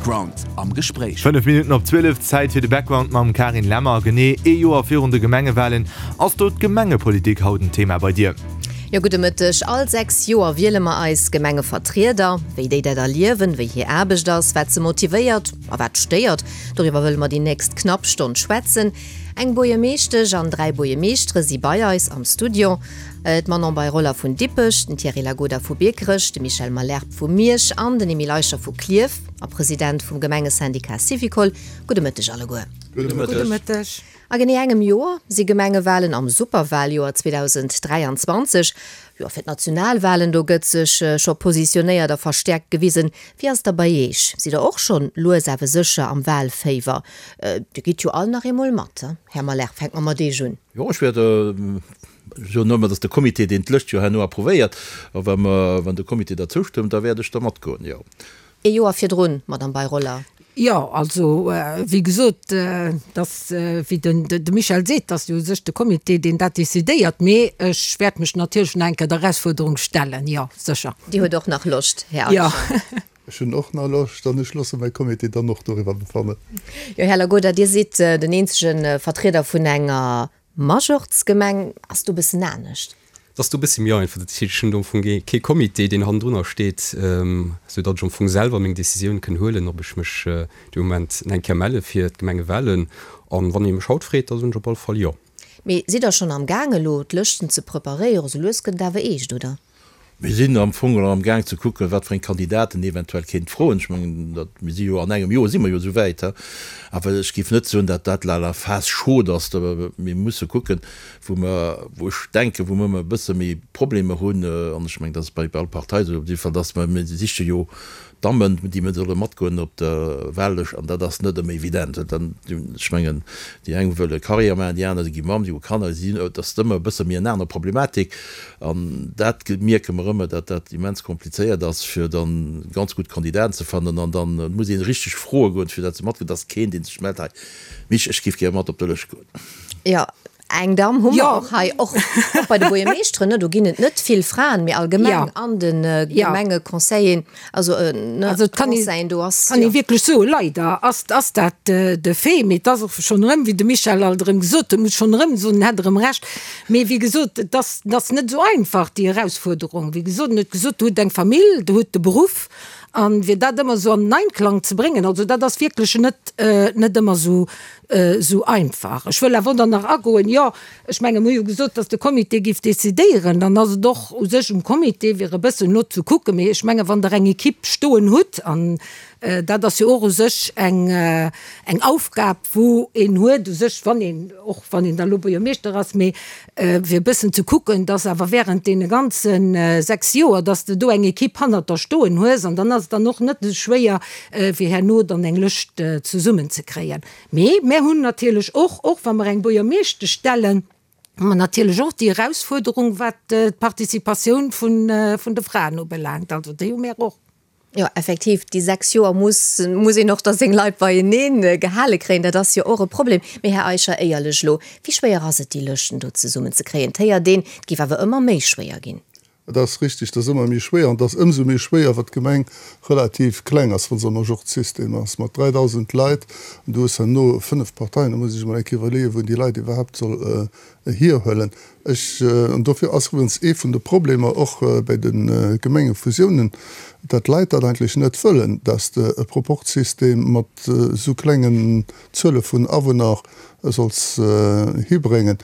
Background am Gespréich. 5 Minutten op 12, Zäit fir de Background mam Karin Lemmer. Genee ee Joer virun de Gemengewalen, ass do d'Gemengepolitik haut en Thema bei dir? Jo, gudde Mëtteg. All 6 Joer wiele mer eis Gemengevertrieder. Wéi déi dat erliewen, wéi hir Aarbecht ass, wat se motivéiert a wat stéiert, doriwwer wëlle mer déi nächst knapp Stonn schwätzen. Eng Buergermeeschtesch an 3 Buergermeeschtere si bei eis am Studio. D'Manon Bei-Roller vun Dippech, den Thierry Lagoda vu Biekerech, de Michel Malherbe vu Miersch an den Emile Eicher vu Klierf a President vum Gemengesyndicat Syvicol. Gudde Mëtteg alleguer. Gudde Mëtteg. A genee engem Joer si Gemengewalen am Superwaljoer 2023. Jo, fir d'Nationalwalen, do gëtt sech scho positionéiert a verstäerkt gewisen. Wéi ass et da bei Iech? Sidd der och schonn lues awer sécher am Walféiwer? Dir gitt jo all nach eemol mat, Här Malherbe, fänke mer mat Iech un. Jo, ech wäert Ech soen nëmmen, dass de Comité, deen d'Lëscht jo herno approuvéiert, a wa mer, wann de Comité der zoustëmmt, da wäert ech da matgoen, jo. Ee Joer virdrun, Madame Bei-Roller. Jo, also, wéi gesot, dass, wéi den de Michel seet, dass jo u sech de Comité, deen dat decidéiert, mee ech wäert mech natierlech nach eng Kéier der Erausfuerderung stellen, jo, sécher. Dir huet och nach Loscht, Här Eicher? Jo. Ech hunn och nach Loscht an ech loosse mäi Comité dann och doriwwer befannen. Jo, Här Lagoda, Dir sidd den eenzege Vertrieder vun enger Majorz-Gemeng ass do bëssen anescht. Et ass do bëssi méi einfach. Dat heescht, ech hunn do am Fong kee Comité, deen hannendrunner steet, sou datt ech am Fong selwer meng Decisioun kënn huelen, ob ech mech dee Moment eng Kéier melle fir d'Gemengewahlen. An wann ee mech haut freet, da soen ech op alle Fall jo. Mee sidd der schonn am Gaang elo d'Lëschten ze preparéieren? Sou lues gëtt et awer eescht, oder? Mir sinn am Fong elo am Gaang ze kucken, wat fir eng Kandidaten eventuell kéint froen. Ech mengen, dat, mir si jo an engem Joer si mer jo esou wäit, he. Awer ech géif net soen, datt dat la la phase chaude ass. Mir musse kucken, wou mer, wou ech denken, wou mer e bësse méi Problemer hunn, an ech mengen, dat ass bei all Partei esou, op jidde Fall, datt mer, mir siche jo Dammen, déi mir solle matgoen op der Wahllëscht, an dat ass net ëmmer evident. Dann, ech mengen, déi eng wëlle Carrière maachen, déi aner, déi gi Mamm, déi hu Kanner, si, et ass ëmmer e bësse méi eng aner Problematik. An dat mierke mer ëmmer, datt dat immens komplizéiert ass, fir dann ganz gutt Kandidaten ze fannen. An dann muss ee richteg froe goen, fir datt se matgoen. Et ass keen, dee sech mellt, hei Mich, ech géif gär mat op der Lëscht goen. Jo, Eng Damm hu mer och hei, och bei de Buergermeeschteren, ne, do ginn et net vill Fraen, mee allgemeng an de Gemengeconseillen, also ne, Conseillen, do ass. Kann ee wierklech soen, leider ass ass dat de Fait, mee et ass och schonn erëm, wéi de Michel alt erëm gesot huet, muss schonn erëm soen, en hätt erëm Recht, mee wéi gesot, et ass et ass net esou einfach, déi Erausfuerderung. Wéi gesot, en huet gesot, Der hutt eng Famill, Der hutt de Beruff, a fir dat ëmmer esou an den Einklang ze bréngen, also dat ass wierklech net net ëmmer esou esou einfach. Ech wëll awer dann nach agoen, jo, ech menge mir hu jo gesot, datt de Comité géif decidéieren, dann ass et och u sech um Comité fir e bëssen no ze kucken. Mee ech menge wann Der eng Equipe stoen hutt, an dat ass jo och u sech eng eng Aufgab wou een huet u sech, wann een, och wann een da lo Buergermeeschter ass, mee fir e bëssen ze kucken, dass awer während deene ganze 6 Joer, dass de do eng Equipe hannert der stoen hues an dann ass et dann och net esou schwéier fir herno dann eng Lëscht zesummen ze kréien. Mee mär hunn natierlech och, och wa mer eng Buergermeeschtesch stellen, hu mer natierlech och déi Erausfuerderung wat d'Participatioun vun de Fraen ubelaangt. Also déi hu mär och. Jo, effektiv, déi 6 Joer muss muss een och da seng Leit beienee gehale kréien. Dat ass jo och e Problem. Mee Här Eicher, éierlech elo, wéi schwéier ass et, déi Lëschten do zesummen ze kréien? Et héiert een, et géif awer ëmmer méi schwéier ginn. Et ass richtig, et ass ëmmer méi schwéier. An et ass ëmsou méi schwéier, wat d'Gemeng relativ kleng ass, wa se am Majorzsystem ass, mat 3.000 Leit. An du hues herno 5 Parteien, da muss ee sech emol eng Kéier iwwerleeën, wou een déi Leit iwwerhaapt soll hierhuelen. Ech, an dofir ass iwwregens ee vun de Problemer och bei de Gemengefusiounen, dat d'Leit dat eigentlech net wëllen, dass de e Proporzsystem mat esou klengen Zuele vun Awunner solls hibréngen.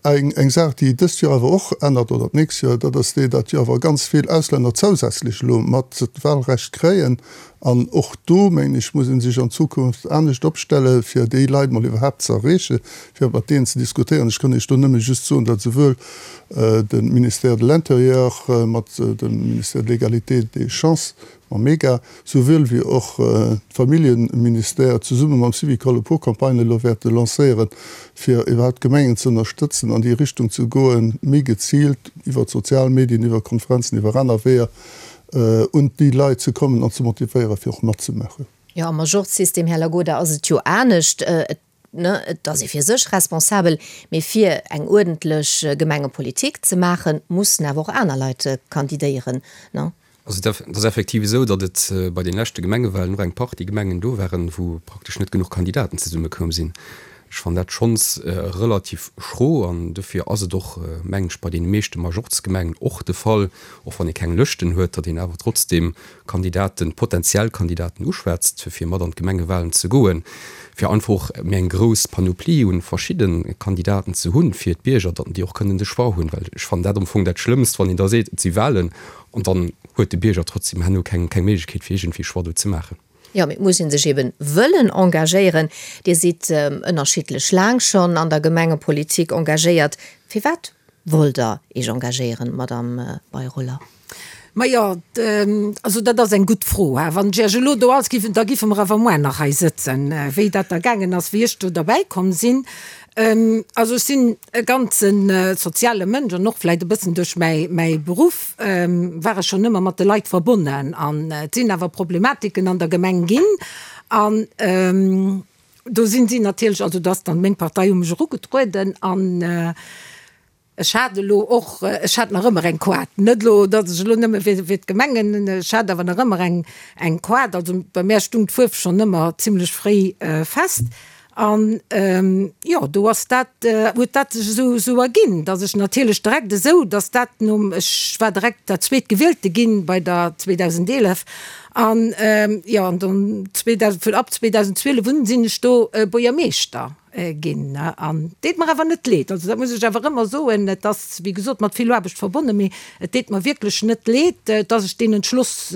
Eng Saach, déi dëst Joer awer och ännert, oder d'nächst Joer, dat ass déi, datt jo awer ganz vill Auslänner zousätzlech elo mat d'Wahlrecht kréien. An och do, mengen ech, muss ee sech an Zukunft anescht opstellen, fir déi Leit mol iwwerhaapt ze erreechen, fir mat deenen ze diskutéieren. Ech kann Iech do nëmme just soen, datt esouwuel de Ministère de l'Intérieur mat dem Ministère de l'Égalité et des chances, mam MEGA, souwuel wéi och d'Familljeministère zesumme mam Syvicol e puer Campagnen elo wäerte lancéieren, fir iwwerhaapt d'Gemengen ze ënnerstëtzen, an déi Richtung ze goen, méi geziilt iwwer d'sozial Medien, iwwer Konferenzen, iwwer aner Weeër un déi Leit ze kommen an ze motivéieren, fir och matzemaachen. Jo, am Majorzsystem, Här Lagoda, ass et jo anescht. Et, ne, et ass ee fir sech responsabel, mee fir eng uerdentlech Gemengepolitik ze maachen, mussen awer och aner Leit kandidéieren, ne? Also et ass effektiv esou, datt et bei den leschte Gemengewahlen och eng Partie Gemengen do waren, wou praktesch net genuch Kandidaten zesummekoum sinn. Ech fannen dat schonns relativ schro an dofir ass et och, mengen ech, bei deene meeschte Majorzgemengen och de Fall, och wann ee keng Lëschten huet, datt een awer trotzdeem Kandidaten, potentiell Kandidaten uschwätzt, fir mat an d'Gemengewahlen ze goen, fir einfach och méi eng grouss Panoplie un verschidde Kandidaten ze hunn fir d'Bierger, datt déi och kënnen de Choix hunn. Well ech fannen dat am Fong dat Schlëmmst, wann een da seet, et si Wahlen an dann huet de Bierger trotzdem herno keng Méiglechkeet fir iergendwéi Choix do ze maachen. Jo, mee et muss ee sech eben wëllen engagéieren. Dir sidd ënnerschiddlech laang schonn an der Gemengepolitik engagéiert. Firwat wollt Der Iech engagéieren, Madamm Bei-Roller? Majo, also dat ass eng gutt Fro. Wann ech Iech elo do alles giff, da giffe mer awer muer nach hei sëtzen, wéi dat da gaangen ass, wéi ech do derbäi komm sinn. Also ech sinn e ganze soziale Mënsch an och vläicht e bëssen duerch mäi mäi Beruff war ech schonn ëmmer mat de Leit verbonnen. An et sinn awer Problematiken an der Gemeng ginn an do sinn si natierlech, also do ass dann meng Partei u mech erugetrueden an Ech hat elo och, ech hat nach ëmmer eng Koart, net elo, datt ech elo nëmme fir fir d'Gemengen, ech hat awer nach ëmmer eng eng Koart. Also bei mär stung d'Fuerf schonn ëmmer zimlech fréi fest. An jo, do ass dat, huet dat sech esou esou erginn, datt ech natierlech direkt esou, datt dat nom, ech war direkt dat Zweetgewielte ginn bei der 2011 an jo, an dann 2000, vun ab 2012 un sinn ech do Buergermeeschter. Ginn. An deet mer awer net leed, also dat muss ech awer ëmmer soen, et ass wéi gesot mat vill Aarbecht verbonnen, mee et deet mer wierklech net leed, dass ech deen Entschloss,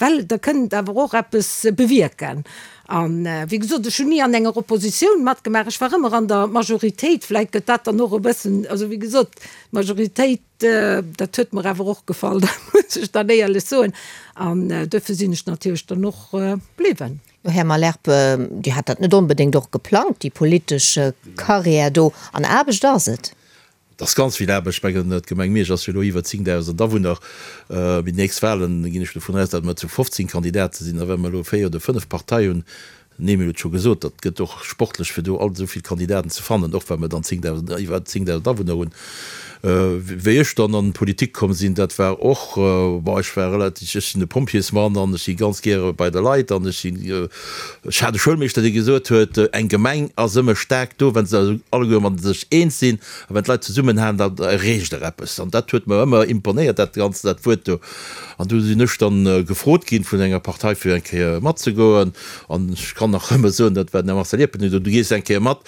well Der kënnt awer och eppes bewierken. An wéi gesot, ech hunn ni an enger Oppositioun matgemaach, ech war ëmmer an der Majoritéit, vläicht gëtt dat dann och e bëssen, also wéi gesot, d'Majoritéit, dat huet mer awer och gefall, dat muss ech dann éierlech soen, an duerfir sinn ech natierlech dann och bliwwen. Jo, Här Malherbe, Dir hat dat net onbedéngt och geplangt, déi politesch Carrière do. An Aarbecht ass et. Et ass ganz vill Aarbecht. Ech mengen, d'Gemeng Miersch ass jo elo iwwer 10.000 Awunner. Bei den nächst Wahlen ginn ech dovun aus, datt mer zu 15 Kandidate sinn. A wa mer elo véier oder fënnef Partei hunn, den Emile huet et scho gesot, dat gëtt och sportlech, fir do all esou vill Kandidaten ze fannen, och wa mer dann 10.000, iwwer 10.000 Awunner hunn. Wéi ech dann an d'Politik komm sinn, dat war och, bon, ech war relativ, ech sinn e Pompjeesmann an ech si ganz gäre bei de Leit an ech sinn, ech hat e Schoulmeeschter, dee gesot huet, eng Gemeng ass ëmmer staark do, wa se alleguer mat sech eens sinn a wann d'Leit zesummenhalen, da erreecht der eppes. An dat huet mer ëmmer imponéiert, dat Ganzt, dat Wuert do. An du sinn ech dann gefrot ginn vun enger Partei, fir eng Kéier matzegoen. An ech kann nach ëmmer soen, dat war den Här Marcel Iepen, deen sot, du gees eng Kéier mat,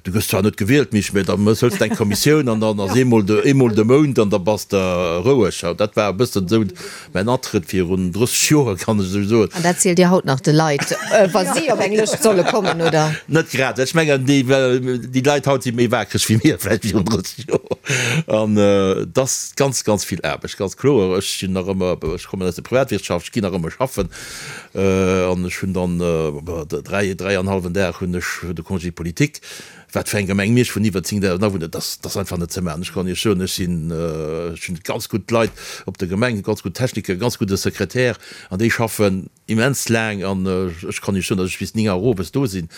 Du gëss zwar net gewielt, Misch, mä da hëls de eng Kommissioun an dann ass eemol de, eemol de Mount an da bass de roueg. Dat war e bëssen esou mäin Atrëtt virun 30 Joer, kann ech esou soen. An dat zielt Dir haut nach de Leit, wa si op eng Lëscht solle kommen, oder? Net grad. Ech mengen, déi, déi Leit haut si méi waakreg wéi mir vläicht virun 30 Joer. An et ass ganz, ganz vill Aarbecht, ganz kloer. Ech sinn nach ëmmer, ech kommen aus der Privatwirtschaft, ech ginn nach ëmmer schaffen. An ech hunn dann dräi, dräi an hallwen Dag hunn ech de Congé politique. Wat fir eng Gemeng Miersch vun iwwer 10.000 Awunner, dat ass einfach net ze maachen. Ech kann Iech soen, ech sinn, ech hunn ganz gutt Leit op der Gemeng, ganz gutt Techniker, ganz gudde Sekretär an déi schaffen immens laang. An ech kann Iech soen, datt ech bis 9 Auer owes do sinn.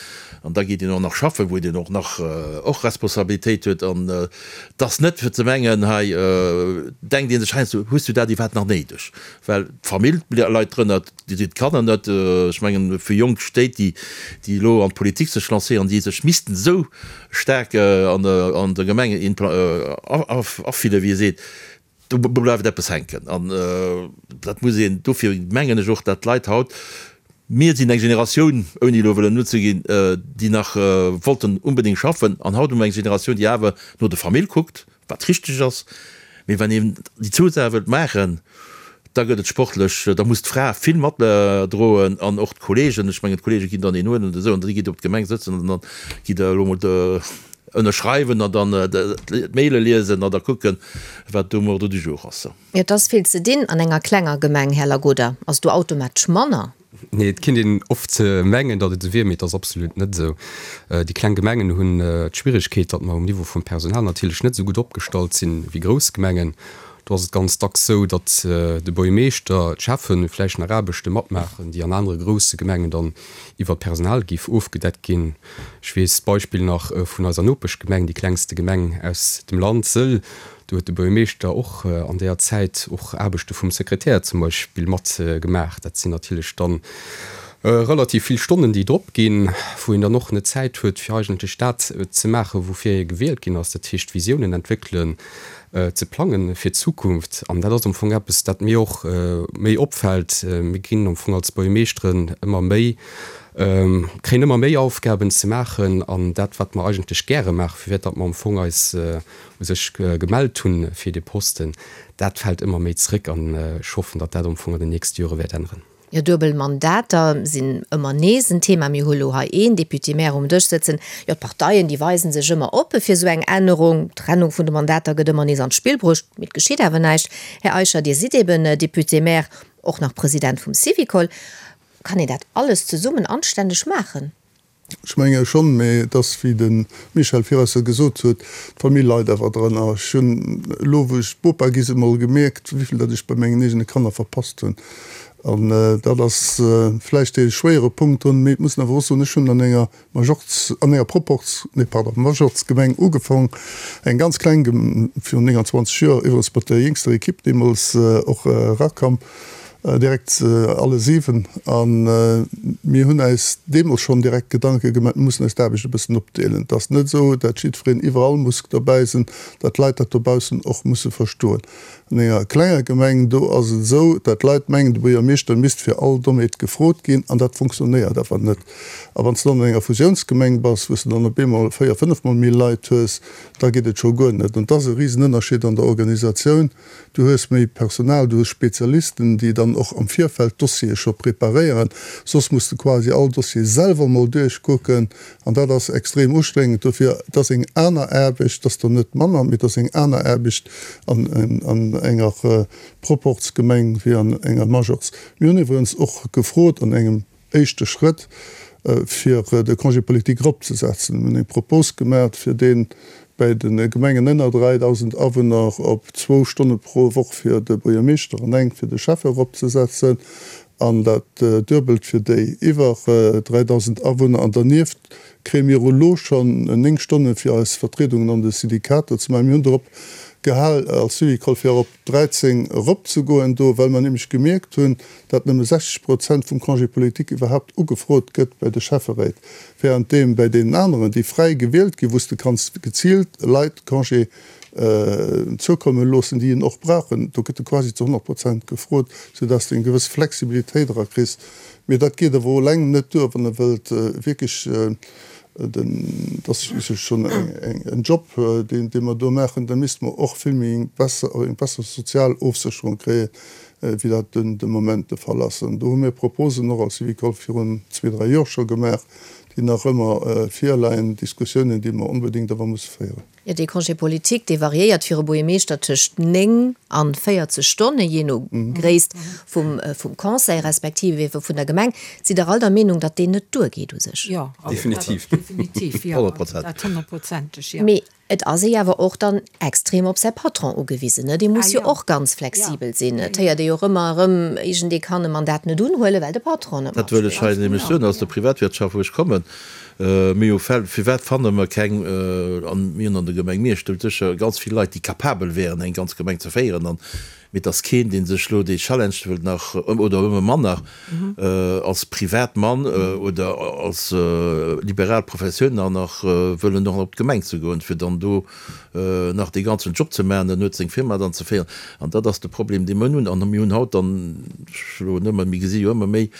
An da geet een och nach schaffen, wou een och nach och Responsabilitéit huet. An et ass net fir ze mengen, hei denkt ee sech heiansdo, hues du dat iwwerhaapt nach néideg? Well d'Famill leit drënner, d'Kanner net. Ech mengen, fir jonk Stéit, déi elo an d'Politik sech lancéieren, déi sech missten esou staark an der Gemeng afillen, wéi ee seet, do bleift eppes hänken. An dat muss een, dofir mengen ech och, datt d'Leit haut, mir sinn eng Generatioun, ouni elo wëllen nozeginn, déi nach wollten unbedéngt schaffen, an haut hu mer eng Generatioun, déi awer no der Famill kuckt, wat richteg ass, mee wann een déi zwou Saache wëllt maachen, da gëtt et sportlech, da muss d'Fra vill matdroen an och d'Kollegen. Ech mengen, d'Kollege ginn dann een huelen oder esou an da gitt Der op d'Gemeng sëtzen an dann gitt Der elo mol ënnerschreiwen an dann d'Maile liesen an da kucken, wat do um Ordre du jour ass. Et ass vill ze dinn an enger klenger Gemeng, Här Lagoda. Ass do automatesch manner? Nee, et kinnt een oft mengen, datt et esou wier, mee et ass absolut net esou. Déi kleng Gemengen hunn d'Schwieregkeet, datt mer um Niveau vum Personal natierlech net esou gutt opgestallt sinn wéi grouss Gemengen. Do ass et ganz dacks sou, datt de Buergermeeschter, d'Schäffen vläicht nach Aarbechte matmaachen, déi an anere grousse Gemengen dann iwwer d'Personal géif ofgedeckt ginn. Ech weess d'Beispill nach vun eiser Nopeschgemeng, déi klengste Gemeng aus dem Land, Sëll. Do huet de Buergermeeschter och an deeër Zäit och Aarbechte vum Sekretär zum Beispill mat gemaach. Dat sinn natierlech dann relativ vill Stonnen, déi drop ginn, wou een dann och net Zäit huet, fir eigentlech dat ze maachen, woufir ee gewielt ginn ass, dat heescht Visiounen entwéckelen, ze plangen fir d'Zukunft. An dat ass am Fong eppes, dat mir och méi opfält. Mir ginn am Fong als Buergermeeschteren ëmmer méi, kréien ëmmer méi Aufgaben ze maachen an dat, wat mer eigentlech gäre maachen, firwat datt mer am Fong eis u sech gemellt hunn fir dee Posten, dat fält ëmmer méi zréck an ech hoffen, datt dat am Fong an den nächste Jore wäert änneren. Jo, duebel Mandater sinn ëmmer nees en Thema. Mir hu lo hei een Député-maire um Dësch sëtzen. Jo, d'Parteien, déi weisen sech ëmmer oppe fir esou eng Ännerung. D'Trennung vun de Mandater gëtt ëmmer nees an d'Spill bruecht, mee et geschitt awer näischt. Här Eicher, Dir sidd eben Député-maire, och nach President vum Syvicol. Kann een dat alles zesummen anstänneg maachen? Ech menge schonn, mee et ass, wéi de Michel Firesse gesot huet, d'Famill leit awer drënner. Ech hunn elo, wou ech Bopa gi sinn, emol gemierkt, wéivill dat ech bei mengen eegene Kanner verpasst hunn. An dat ass vläicht dee schwéiere Punkt drun. Mee et muss een awer och soen, ech hunn an enger Majorz, an enger Proporz, nee pardon, Majorzgemeng ugefong, eng ganz kleng Gem, virun 29 Joer, iwwerens mat der jéngster Ekipp deemools och erakam. Direkt alle 7. A mir hunn äis deemools schonn direkt Gedanke gemaach, mir mussen eis d'Aarbecht e bëssen opdeelen. Et ass net esou, dat jiddwereen iwwerall muss dobäi sinn, dat d'Leit dat dobaussen och musse verstoen. An enger klenger Gemeng, do ass et esou, dat d'Leit mengen, de Buergermeeschter misst fir all Dommheet gefrot ginn, an dat fonctionnéiert awer net. A wann s de dann an enger Fusiounsgemeng bass, wou s de dann op eemol véier-, fënnefmol méi Leit hues, da geet et scho guer net. An et ass e Risenënnerscheed an der Organisatioun. Du hues méi Personal, du hues Spezialisten, déi dann och am Virfeld d'Dossiere scho preparéieren. Soss muss de quasi all Dossier selwer mol duerchkucken an dat ass extrem ustrengend. Dofir, et ass eng aner Aarbecht, et ass der net manner, mee et ass eng aner Aarbecht an enger Proporzgemeng wéi an enger Majorz. Mir hunn iwwerens och gefrot an engem éischte Schrëtt, fir de Congé politique eropzesetzen. Mir hunn eng Propos gemaach, fir dee bäi de Gemengen ënner 3.000 Awunner op zwou Stonne pro Woch fir de Buergermeeschter an eng fir de Schäffe eropzesetzen an dat Duebelt fir déi iwwer 3.000 Awunner. An dernieft kréie mir elo schonn 9 Stonne fir eis Vertriedungen an de Syndikater ze maachen. Mir hunn drop gehal als Syvicol, fir op 13 eropzegoen do, well mer nämlech gemierkt hunn, datt nëmme 60 Prozent vum Congé politique iwwerhaapt ugefrot gëtt bei de Schäfferéit, währenddeem bäi deenen aneren, déi fräi gewielt ginn, wou s de kanns geziilt Leit Congé zoukomme loossen, déi en och brauchen, do gëtt e quasi zu 100 Prozent gefrot, soudatt s de eng gewëss Flexibilitéit erakriss. Mee dat geet awer eleng net duer, wann e wëllt wierklech Dat ass u sech schonn en Job, dee mer do maachen. Da misste mer och vill méi eng besser, eng besser sozial Ofsécherung kréien, wéi dat de Moment de Fall ass. An do hu mir Proposen och als Syvicol virun zwee, dräi Joer scho gemaach, déi nach ëmmer virleien, Diskussiounen, déi mer onbedéngt awer musse féieren. Jo, dee Congé politique, dee variéiert fir e Buergermeeschter tëscht 9 an 40 Stonne, jee no Gréisst vum Conseil respektiv ebe vun der Gemeng. Sidd Der all der Meenung, datt deen net duergeet u sech? Jo, Definitiv. definitiv, jo, dat honnertprozenteg, jo. Mee et ass ee awer och dann extrem op säi Patron ugewisen, ne? Dee muss jo och ganz flexibel sinn. Et héiert ee jo och ëmmer erëm, iergendee kann e Mandat net unhuelen, well de Patron net Dat wëll ech hei matspillt. nämlech soen aus der Privatwirtschaft, wou ech kommen. Mir hu Fäll, firwat fanne mer keng, an mir hunn an der Gemeng Miersch do sécher ganz vill Leit, déi capabel wären, eng ganz Gemeng ze féieren, an, mee et ass keen, dee sech elo dee Challenge wëllt nach, oder ëmmer manner, als Privatmann oder als liberal Professioun nach nach wëllen och op d'Gemeng ze goen, fir dann do nach dee ganzen Job ze maachen, dann huet seng Firma dann ze féieren. An dat ass de Problem, dee mer hunn. An mir hunn haut dann, ech elo nëmme, mir gesi jo ëmmer méi,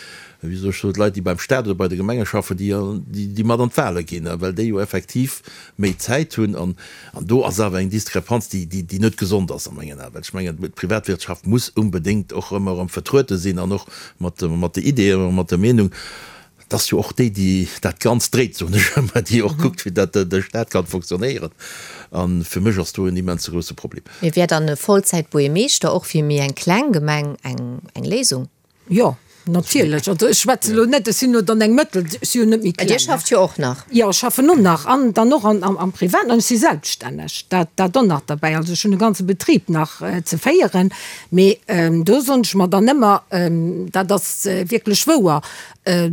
Wéi soll ech soen, d'Leit, déi beim Staat oder bei de Gemenge schaffen, déi, déi mat an d'Wahle ginn, well déi jo effektiv méi Zäit hunn. An, an do ass awer eng Diskrepanz, déi, déi, déi net gesond ass a mengen Aen. Well ech mengen, d'Privatwirtschaft muss unbedéngt och ëmmer erëm vertruete sinn an och mat, mat de Ideeën, mat der Meenung. Et ass jo och déi, déi dat Ganzt dréit, soen ech ëmmer, déi och kuckt, fir datt de Staat kann fonctionnéieren. A fir mech ass do en immense grousse Problem. Mee wär dann e Vollzäit-Buergermeeschter och fir méi eng kleng Gemeng eng, eng Léisung? Jo. Natierlech, also ech schwätze elo net, ech sinn elo dann eng Mëttel, ech si jo net méi kleng. Dir schafft jo och nach. Jo, ech schaffen och nach an dann och am Privaten an ech si selbststänneg, dat dat och nach derbäi. Also ech hunn e ganze Betrib nach ze féieren, mee do soen ech mer dann ëmmer, dat ass wierklech wouer,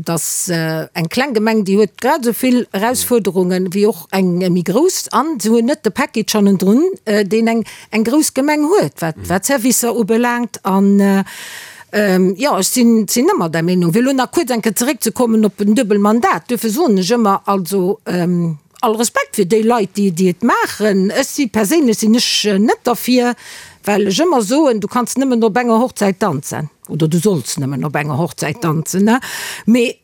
dass eng kleng Gemeng, déi huet grad esou vill Erausfuerderungen wéi och eng méi grouss an se hunn net de Package hannendrun, deen eng eng grouss Gemeng huet, wat wat d'Servicer ubelaangt. An jo, ech sinn sinn ëmmer där Meenung. Fir elo nach kuerz eng Kéier zeréckzekommen op en duebel Mandat, duerfir soen ech ëmmer, also all Respekt fir déi Leit, déi déi et maachen. Ech si perséinlech sinn ech net derfir, well ech ëmmer soen, du kanns nëmmen op enger Hochzäit danzen oder du solls nëmmen op enger Hochzäit danzen, ne? Mee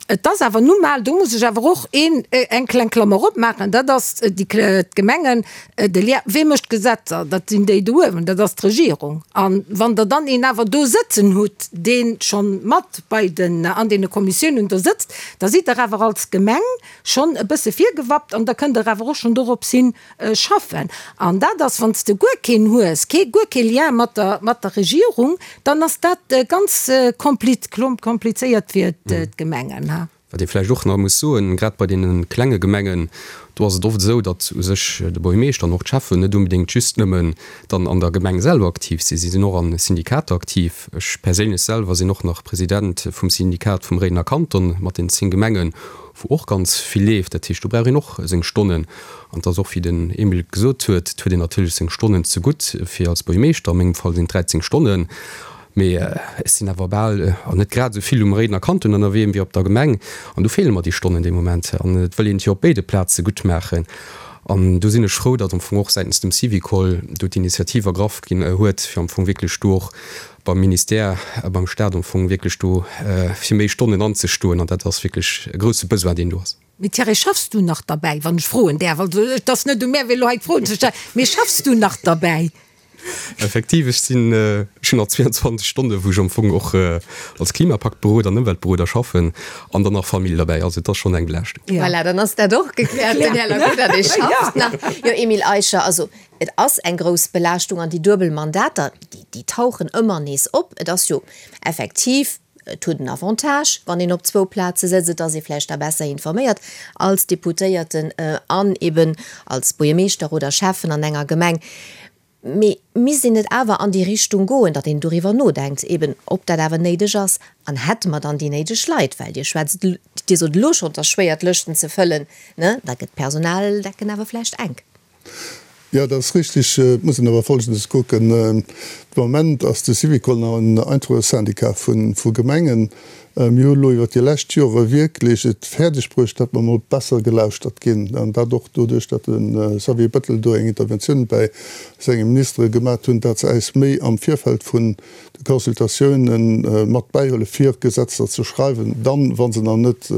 et ass awer nu mal, do muss ech awer och een eng kleng Klammer opmaachen, dat ass déi d'Gemengen, de Lien, wee mécht d'Gesetzer? Dat sinn déi do uewen, dat ass d'Regierung. A wann Der dann een awer do sëtzen hutt, dee schonn mat bei den an deene Kommissiounen do sëtzt, da sidd Der awer als Gemeng schonn e bësse virgewappt an da kënnt Der awer och schonn dorops hin schaffen. An dat ass, wann s de guer keen hues, kee, guer kee Lien mat der, mat der Regierung, dann ass dat ganz komplizéiert fir d'Gemengen. Wat ee vläicht och nach muss soen, grad bei deene klenge Gemengen, do ass et oft esou, datt u sech de Buergermeeschter an och d'Schäffen net unbedéngt just nëmmen dann an der Gemeng selwer aktiv sinn. Si sinn och a Syndikater aktiv. Ech perséinlech selwer sinn och nach President vum Syndikat vum Réidener Kanton mat den 10 Gemengen, wou och ganz vill leeft. Dat heescht, do brauch een och seng Stonnen. An et ass och, wéi den Emile gesot huet, et huet een natierlech seng Stonnen zegutt fir als Buergermeeschter, a mengem Fall sinn et 13 Stonnen, mee ech sinn awer bal, an net grad esou vill um Réidener Kanton ënnerwee wéi op der Gemeng. An do feele mer déi Stonnen dee Moment. An et wëll een et jo op béide Plaze gutt maachen. An do sinn ech frou, datt am Fong och säitens dem Syvicol do d'Initiativ ergraff ginn huet, fir am Fong wierklech do och beim Ministère a beim Stat am Fong wierklech do fir méi Stonnen anzestoen. An dat ass wierklech e grousse Besoin, deen do ass. Mee Thierry, schaffs du nach derbäi, wann ech froen däerf? Also et ass net u mär, fir elo hei d'Froen ze stellen, mee schaffs du nach derbäi? Effektiv, ech sinn, ech hunn nach 22 Stonne wou ech am Fong och als Klimapaktberoder an Ëmweltberoder schaffen an dann nach Famill derbäi. Also et ass schonn eng Belaaschtung. Voilà, dann ass dat och gekläert, den Här Lacouda, dee schafft nach. Jo, Emile Eicher, also et ass eng grouss Belaaschtung an déi duebel Mandater, déi tauchen ëmmer nees op. Et ass jo effektiv, et huet en Avantage, wann een op zwou Plaze sëtzt, et ass ee vläicht da besser informéiert als Deputéierten an eben als Buergermeeschter oder Schäffen an enger Gemeng. Mee misst een net awer an déi Richtung goen, datt een doriwwer nodenkt, eben ob dat awer néideg ass an hätte mer dann déi néideg Leit? Well Dir schwätzt, Dir sot elo schonn, et ass schwéier d'Lëschten ze fëllen, ne? Da gëtt d'Personaldecken awer vläicht enk. Jo, dat ass richtig. Et muss een awer Folgendes kucken, De Moment ass de Syvicol nach en einfache Syndicat vu Gemengen. Mir hu elo iwwert déi lescht Jore wierklech et fäerdeg bruecht, datt mer emol besser gelauschtert ginn, an dat och doduerch, datt de Xavier Bettel do eng Interventioun bäi senge Ministere gemat hunn, datt se äis méi am Virfeld vun de Consultatiounen mat bäihuele fir Gesetzer ze schreiwen, dann, wa se nach net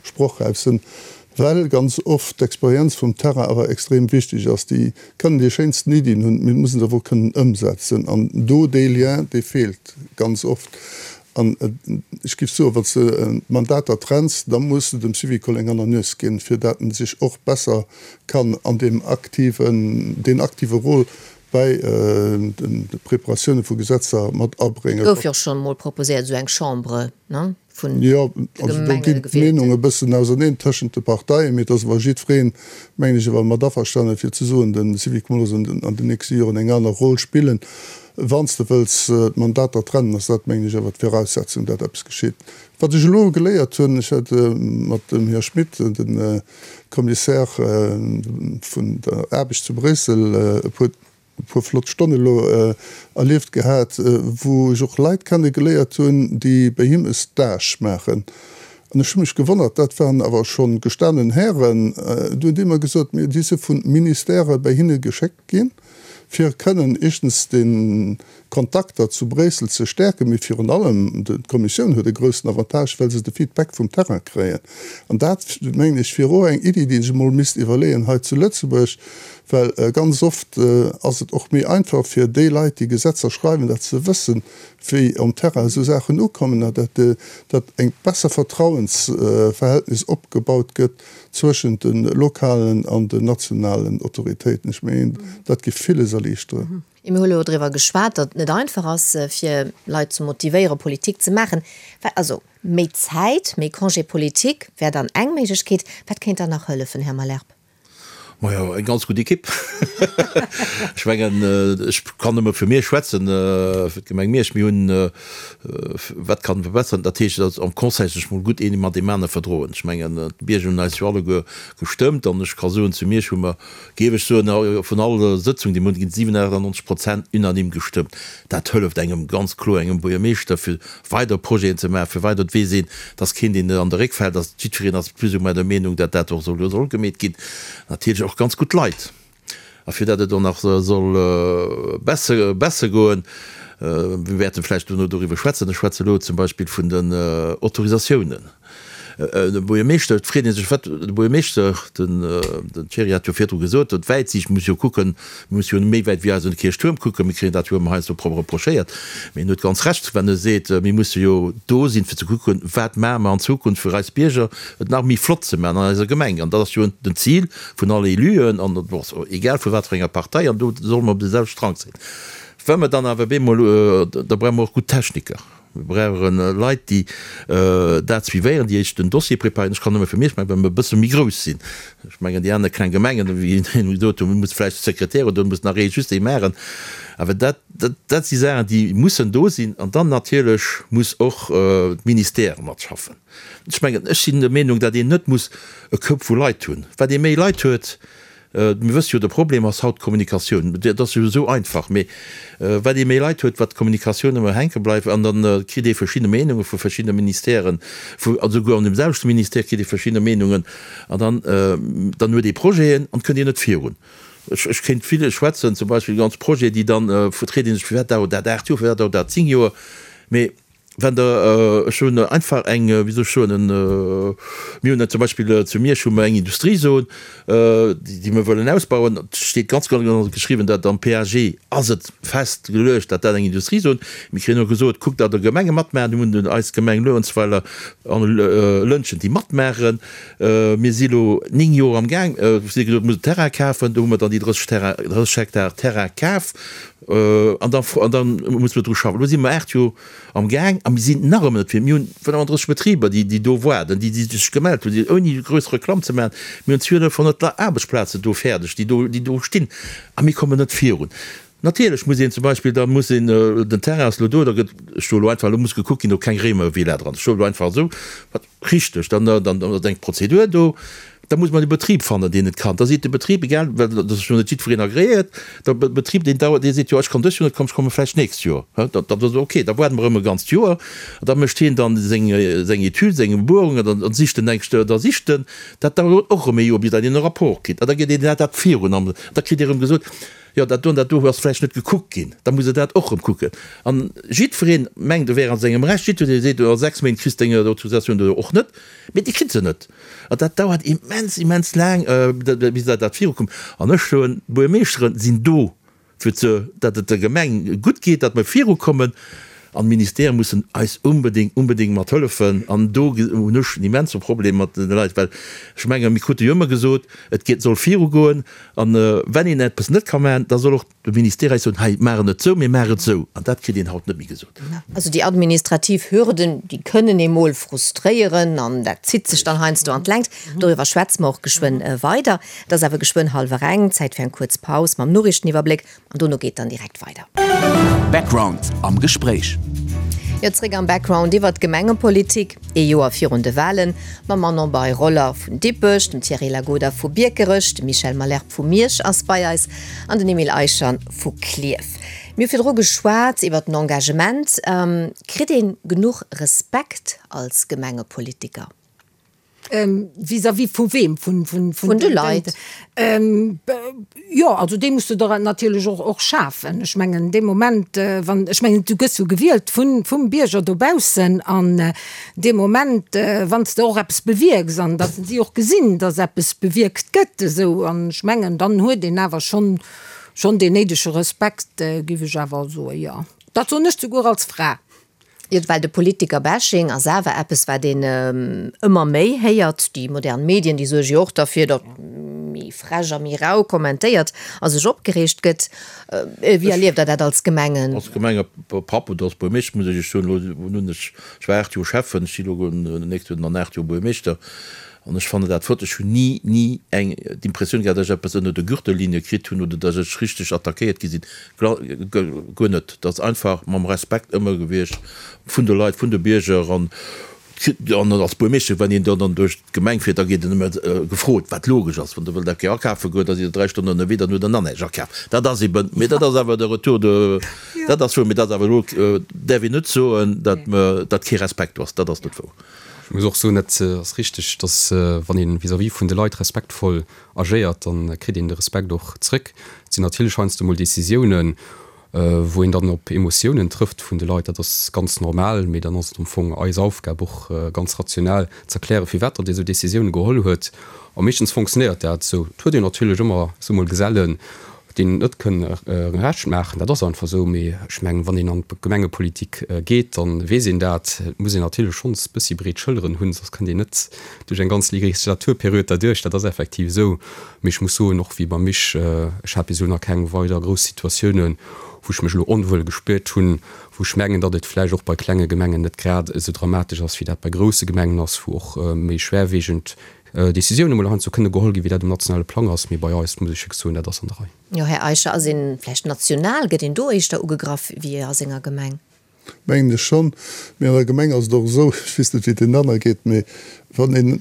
sprochräif sinn. Well ganz oft d'Experienz vum Terrain awer extrem wichteg ass. Déi kënnen déi schéinsten Iddien hunn, mee mussen se awer och kënnen ëmsetzen. An do dee Lien, dee feelt ganz oft. An ech géif soen, wann s de d'Mandater trenns, da muss de dem Syvicol eng aner Nues ginn, fir dat en sech och besser kann an deem aktiven, deen aktive Rôle bäi de Preparatioune vu Gesetzer mat abréngen. Gouf jo och schonn emol proposéiert, esou eng Chambre, ne? vun Jo, also do ginn d'Meenunge e bëssen auserneen tëschent de Parteien, mee et ass awer jiddwereen, mengen ech, awer mat averstanen, fir ze soen, de Syvicol muss an den nächste Joren eng aner Roll spillen. Wann s de wëlls d'Mandater trennen, ass dat, mengen ech, awer d'Viraussetzung, dat eppes geschitt. Wat ech elo geléiert hunn, ech hat mat dem Här Schmit, dem Commissaire vun der Aarbecht zu Bréissel, e puer e puer flott Stonne elo erlieft gehat, wou ech och Leit kenne geléiert hunn, déi bei him e Stage maachen. An ech hu mech gewonnert, dat waren awer scho gestanen Hären, du hunn déi mer gesot, mee déi si vu Ministèrë bei hinne geschéckt ginn, fir kënnen éischtens déi Kontakter zu Bréissel ze stäerken, mee virun allem d'Kommissioun huet e groussen Avantage, well se de Feedback vum Terrain kréien. An dat, mengen ech, wier och eng Iddi, déi ee sech emol misst iwwerleeën hei zu Lëtzebuerg. Well ganz oft ass et och méi einfach fir déi Leit, déi Gesetzer schreiwen, datt se wëssen, wéi um Terrain esou Saachen ukommen a datt datt eng besser Vertrauensverhältnis opgebaut gëtt zwëschent de lokalen an den nationalen Autoritéiten. Ech mengen, dat géif villes erliichteren. Mir hu elo driwwer geschwat, datt et net einfach ass, fir Leit ze motivéieren, Politik ze maachen. Also méi Zäit, méi Congé politique wär dann eng Méiglechkeet. Wat kéint dann nach hëllefen, Här Malherbe? Majo, eng ganz gutt Ekipp. Ech mengen, ech kann nëmme fir Miersch schwätzen, fir d'Gemeng Miersch. Mir hunn, wat kann verbessern, dat heescht, datt am Conseil sech mol gutt een mat deem anere verdroen. Ech mengen, d'Bierger hunn eis jo alleguer gestëmmt an ech ka soen, zu Miersch hu mer, géif ech soen, vun all Sëtzung, déi mer hunn, ginn 97 Prozent unanime gestëmmt. Dat hëlleft engem ganz kloer, engem Buergermeeschter, fir weider Projeten ze maachen, fir weider, et weess een, dass keen deen an de Réck fält, dass jiddwereen ass plus ou moins der Meenung, dat dat och soll soll gemeet ginn. Natierlech och ganz gutt Leit. A fir dat et och nach soll besser besser goen, mir wäerte vläicht dono doriwwer schwätzen, ech schwätze elo zum Beispill vun den Autorisatiounen, De Buergermeeschter, et freet ee sech, wat de Buergermeeschter, den Thierry hat jo virdru gesot, huet Wäitsiicht, muss jo kucken, mir musse jo méi wäit wéi eisen Kierchtuerm kucken, mir kréien dat jo ëmmer heiansdo reprochéiert, mee en huet ganz Recht, wann e seet, mir musse jo do sinn, fir ze kucken, wat maache mer an Zukunft fir eis Bierger et nach méi flott ze maachen an eiser Gemeng. An dat ass jo den Zil vun alle Éluen, an egal vu wat fir enger Partei, an do solle mer op deem selwechte Strang sinn. Wa mer dann awer bemol, da brauche mer och gutt Techniker. Mir brauche Leit, déi dat suivéieren, déi éischt den Dossier preparéieren. Ech kann nëmme fir mech maachen, well mer e bësse méi grouss sinn. Ech mengen, déi aner kleng Gemengen, wéi een gesot huet, do muss vläicht de Sekretär oder do muss nach ee just ee maachen. Awer dat, dat si Saachen, déi mussen do sinn. An dann natierlech muss och d'Ministère matschaffen. Ech mengen, ech sinn der Meenung, datt een net muss e Koup vu Leit hunn. Wat ee méi Leit huet, Mir wësse jo, de Problem ass haut d'Kommunikatioun. Dat ass jo esou einfach, mee wat ee méi Leit huet, wat d'Kommunikatioun ëmmer hänke bleift an da kritt ee verschidde Meenunge vu verschiddene Ministèren, vu an esouguer an deem selwechte Ministère kritt ee verschidde Meenungen an dann, dann huet ee Projeten an et kënnt een net virun. Ech, ech kéint vill schwätzen, zum Beispill ganz Projeten, déi dann, freet ee sech, firwat dauert dat 8 Joer, firwat dauert dat 10 Joer, mee Wenn Der, ech hunn einfach eng, wéi soll ech soen, en, mir hunn zum Beispill zu Miersch hu mer eng Industriezon, déi mer wëllen ausbauen. Et steet ganz genau geschriwwen, dat am PAG ass et festgeluecht, datt dat eng Industriezon. Mir kréien och gesot, kuckt, datt Der Gemenge matmaachen. Do hunn dunn eis Gemeng Luerenzweiler an Lëntgen, déi matmaachen. Mir si lo 9 Joer am Gaang, si gesot, mir mussen Terrain kafen. Do hu mer dann déi 30 Terrain, 30 Hektar Terrain kaf an da, an da musse mer dru schaffen. Elo si mer 8 Joer am Gaang a mir sinn nach ëmmer net fir. Mir hunn 35 Betriber, déi, déi do waarden, déi, déi sech gemellt hunn, déi, ouni grouss Reklamm ze maachen, mir hunn 1200 Aarbechtsplazen do fäerdeg, déi do, déi do stinn a mir kommen net virun. Natierlech muss een zum Beispill, da muss een, den Terrain ass elo do, da gëtt, ech soe elo einfach, elo muss gekuckt ginn, ob keng Réimervilla dran ass, ech soe elo einfach esou, wat Richteg, dann ass eng Prozedur do, da muss mer de Betrib fannen, deen et kann. Da seet de Betrib, egal, well dat ass jo net jiddwereen agreéiert, de Betrib, deen dauert, dee seet, jo ech kann dëst Joer net kommen, ech komme vläicht d'nächst Joer. Da ass ok, da waarde mer erëm e ganzt Joer an da mécht hien dann seng Etüd, seng Buerungen an da sicht en eng, da sicht en, dat dauert och erëm e Joer, bis datt een e Rapport kritt an da geet een dat virun an da kritt ee erëm gesot, Jo, dat do an dat do ass vläicht net gekuckt ginn, da muss e dat och erëm kucken. An jiddweree mengt, e wär a sengem Recht, jiddweree seet, a 6 Méint kriss de deng Autorisatioun oder och net, mee dee kritt se net. An dat dauert immens, immens laang, bis dat dat virukoum. An ech soen, d'Buergermeeschteren sinn do, fir ze, datt et der Gemeng gutt geet, datt mer virukommen. An d'Ministèrë mussen eis unbedéngt, unbedéngt mat hëllefen. An do hunn ech en immense Problem mat de Leit, well ech mengen, mir krute jo ëmmer gesot, et geet, soll virugoen. An wenn een eppes net ka maachen, da soll och de Ministère eis soen, hei, maach et net esou, mee maach et esou. An dat kritt een haut net méi gesot. Also déi administrativ Hürden, déi kënnen ee mol frustréieren an dat zitt sech dann heiansdo an d'Längt. Doriwwer schwätze mer och geschwënn weider. Et ass awer geschwënn hallwer eng, Zäit fir eng kuerz Paus mam Noriichteniwwerbléck. An dono geet dann direkt weider. Background am Gespréich. Jo, zréck am Background iwwert d'Gemengepolitik, ee Joer virun de Walen, mam Manon Bei-Roller vun Dippech, dem Thierry Lagoda vu Biekerech, de Michel Malherbe vu Miersch ass bei eis an den Emile Eicher vu Klierf. Mir hu virdru geschwat iwwert den Engagement. Kritt ee genuch Respekt als Gemengepolitiker? Vis-à-vis vu weem? Vun de Leit. Jo, also dee muss de der natierlech och, och schafen. Ech mengen, dee Moment, wann, ech mengen, du gëss jo gewielt vun, vum Bierger dobaussen an dee Moment, wann s de och eppes bewierks an datt si och gesinn, datt eppes bewierkt gëtt esou, an ech mengen, dann huet een awer schonn, schonn deen néidege Respekt, géif ech awer soen, jo. Dat soen ech souguer als Fra. Jo, well de Politiker-Bashing ass awer eppes, wat een ëmmer méi héiert. Déi modern Medien, déi suerge jo och derfir, datt méi frech a méi rau kommentéiert a sech opgereegt gëtt. Wéi erlieft Der dat als Gemengen? Als Gemengepapp oder als Buermeeschter muss ech Iech soen, elo hunn ech, ech war 8 Joer Schäffen, ech si elo nächst Joer dann 8 Joer Buermeeschter an ech fannen dat flott. Ech hunn ni, ni eng d'Impressioun gehat, datt ech eppes ënner der Gürtellinie kritt hunn oder datt ech richteg attackéiert gi sinn. Guer net. Dat ass einfach mam Respekt ëmmer gewiescht vun de Leit, vun de Bierger. An als Buermeeschter, wann een dann duerch d'Gemeng fiert, da gétt en ëmmer gefrot, wat logesch ass. Wann Der wëllt eng Kéier akafe goen, da sidd Der 3 Stonnen ënnerwee, dann hutt Der nach näischt akaf. Dat ass eben, mee dat ass awer de Retour de, dat ass wouer. Mee dat ass awer elo, däerf een net soen, datt mer, datt kee Respekt do ass. Dat ass net wouer. Ech muss och soen, dat ass richteg, datt wann ee vis-à-vis vun de Leit respektvoll agéiert, dann kritt een de Respekt och zréck. Et sinn natierlech heiansdo mol Décisiounen, wou een dann op Emotiounen trëfft vun de Leit, dat ass ganz normal, mee dann ass et am Fong eis Aufgab och ganz rational ze erklären, firwat datt ee sou Décisiounen geholl huet. A meeschtens fonctionnéiert dat esou. Et huet een natierlech ëmmer esou mol Gesellen, deenen et net kënn Recht maachen, dat ass einfach esou. Mee ech mengen, wann een an d'Gemengepolitik geet, da weess een dat. Et muss een natierlech schonns e bëssi breet Schëlleren hunn, soss kënnt een net duerch eng ganz Legislaturperiod derduerch. Dat ass effektiv esou. Mee ech muss soen, och wéi beim Mich, ech hat bis elo nach keng weider grouss Situatiounen, wou ech mech elo onwuel gespuert hunn, wou ech mengen, datt et vläicht och bei klenge Gemengen net grad esou dramatesch ass, wéi dat bei grousse Gemengen ass, wou och méi schwerwiegend Decisiounen emol heiansdo kënne geholl ginn, wéi dat um nationale Plang ass. Mee bei eis, muss ech wierklech soen, dat ass an der Rei. Jo, Här Eicher, ass een vläicht national, gëtt een do éischter ugegraff wéi a senger Gemeng? Mengen ech schonn. Mee an der Gemeng ass et och esou, ech weess net wéi et deenen anere geet, mee wann een,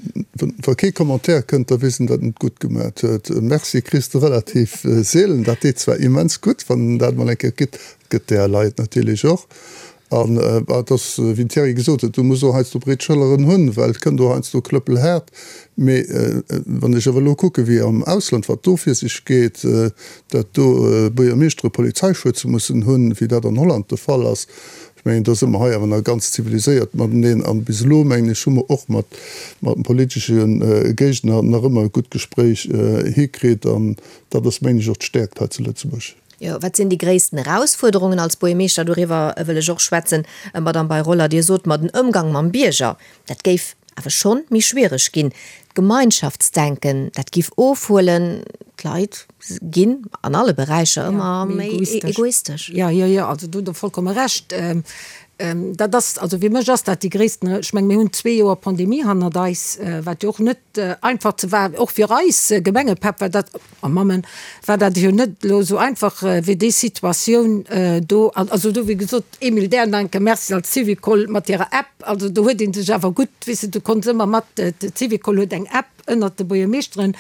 wa kee Commentaire kënnt, da weess een, datt en et gutt gemat huet. E Merci kriss de relativ seelen. Dat deet zwar immens gutt, wann en dat emol eng Kéier kritt, et gëtt där Leit natierlech och. An et ass, wéi den Thierry gesot huet, du muss och heiansdo breet Schëlleren hunn, well et kënnt och heiansdo klëppelhaart. Mee wann ech awer elo kucke wéi am Ausland, wat do vir sech geet, datt do Buergermeeschtere Polizeischutz mussen hunn, wéi dat an Holland de Fall ass, ech mengen, do si mer hei awer nach ganz ziviliséiert mateneen. An bis elo, mengen ech, hu mer och mat mat politesche Géigner nach ëmmer e gutt Gespréich hikritt. An dat ass, mengen ech, och d'Stäerkt hei zu Lëtzebuerg. Jo, wat sinn déi gréissten Erausfuerderungen als Buergermeeschter? Doriwwer wëll ech och schwätzen. Madamm Bei-Roller, Dir sot mer, den Ëmgang mam Bierger, dat géif awer schonn méi schwiereg ginn. D'Gemeinschaftsdenken, dat giff ofhuelen. D'Leit ginn an alle Beräicher ëmmer méi egoistesch. Jo, jo, jo, also do hutt Der vollkomme Recht. Dat ass, also fir mech ass dat déi gréissten, ech menge mir hunn zwee Joer Pandemie hannert eis, wat jo och net einfach ze war, och fir eis Gemengepäpp war dat, a Mammen, war dat jo net elo esou einfach wéi déi Situatioun do. An also do, wéi gesot, Emile Dernanke, Merci als Syvicol mat hirer App, also do huet ee sech awer gutt, weess de, du konns ëmmer mat, d'Syvicol huet eng App ënnert de Buergermeeschteren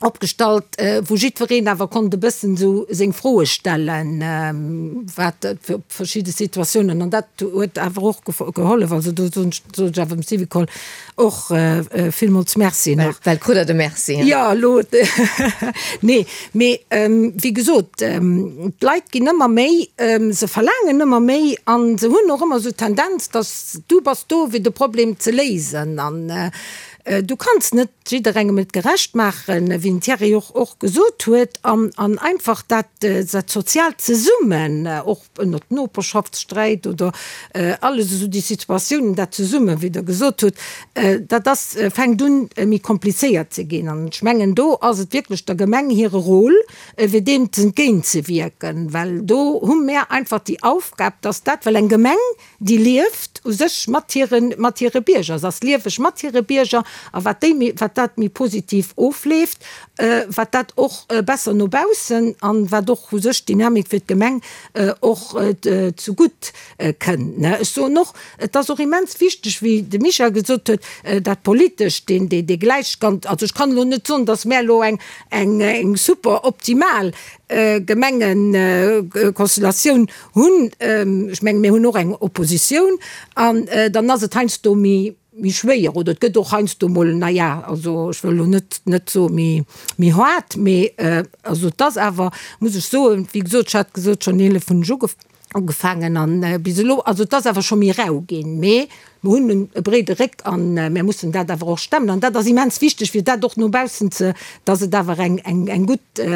opgestallt, wou jiddwereen awer konnt e bëssen esou seng Froe stellen, wat op verschidde Situatiounen, an dat huet awer och gehollef. Also do soen ech awer dem Syvicol och villmools Merci nach. Well krut Der de Merci? Jo, elo, nee, mee wéi gesot, d'Leit ginn ëmmer méi, se verlaangen ëmmer méi a se hunn och ëmmer esou d'Tendenz, dass du bass do fir de Problem ze léisen an du kanns net jidderengem et gerecht maachen, wéi den Thierry och och gesot huet, an an einfach dat dat soziaalt Zesummen, och ënnert Noperschaftssträit oder alles esou déi Situatiounen, dat Zesummen, wéi Der gesot hutt, dat ass fänkt un méi komplizéiert ze ginn. An ech mengen, do ass et wierklech der Gemeng hire Rôle, fir deem entgéintzewierken, well do hu mär einfach déi Aufgab, dass dat, well eng Gemeng, Déi lieft u sech mat hire, mat hire Bierger. Se ass lieweg mat hire Bierger. A wat déi méi, wat dat méi positiv ofleeft, wat dat och besser no baussen an wat och u sech d'Dynamik fir d'Gemeng och zegutt kënnt. Ech soen och, et ass och immens wichteg, wéi de Michel gesot huet, dat Politescht, deen, dee, dee Gläichstand. Also ech kann elo net soen, datt mär elo eng, eng, eng super optimal méi schwéier oder et gëtt och heiansdo mol, na ja, also ech wëll elo net, net soe méi, méi haart, mee also et ass awer, muss ech soen, wéi gesot, ech hat gesot, schonn 11 hunn ech ugefaangen, ugefaangen an bis elo, also et ass awer scho méi rau ginn, mee mer hunn e breede Réck an mär mussen dat awer och stemmen an dat ass immens wichteg, fir dat och no baussen ze, dass et awer eng, eng, eng gutt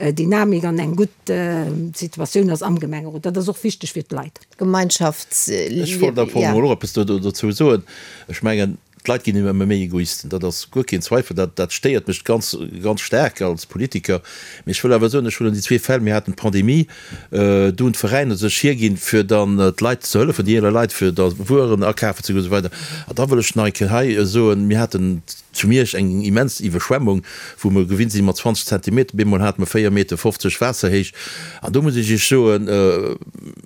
Dynamik an eng gutt Situatioun ass am Gemengerot. Dat ass och wichteg fir d'Leit. Gemeinschaftsliewen, Ech wollt am Fong emol och eppes dozou soen. Ech mengen, d'Leit ginn ëmmer méi Egoisten, dat ass guer keen Zweifel. Dat, dat stéiert mech ganz, ganz staark als Politiker. Mee ech wëll awer soen, ech huelen déi zwee Fäll, mir haten d'Pandemie, do hunn d'Veräiner sech hierginn, fir dann d'Leit ze hëllefen, déi eeler Leit, fir da Wueren akafen ze goen esou weider. An da wëll ech nach eng Kéier hei soen, mir haten zu Miersch eng immens Iwwerschwemmung, wou mer gewinnt sinn mat 20 Zentimeter, bemol hate mer 4 Meter 50 Waasserhéicht. An do muss ech Iech soen,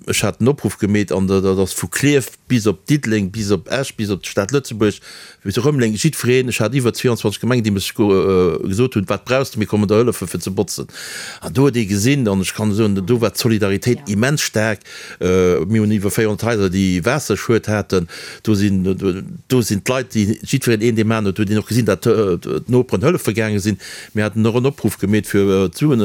ech hat den Opruff gemeet an dat ass vu Klierf bis op Diddeleng, bis op Esch, bis op d'Stad Lëtzebuerg, bis op Rëmeleng, jiddwereen, ech hat iwwer 22 Gemengen, déi mech gesot hunn, wat brauchs de, mir kommen der hëllefen fir ze botzen. An do huet ee gesinn, an ech kann soen, do war d'Solidaritéit immens staark, mir hunn iwwer 400 Haiser, déi Waasserschued haten, do sinn, do sinn d'Leit, déi jiddwereen een deem aneren huet, huet een och gesinn, datt d'Noperen hëllefe gaange sinn. Mir haten och en Opruff gemeet fir d'Suen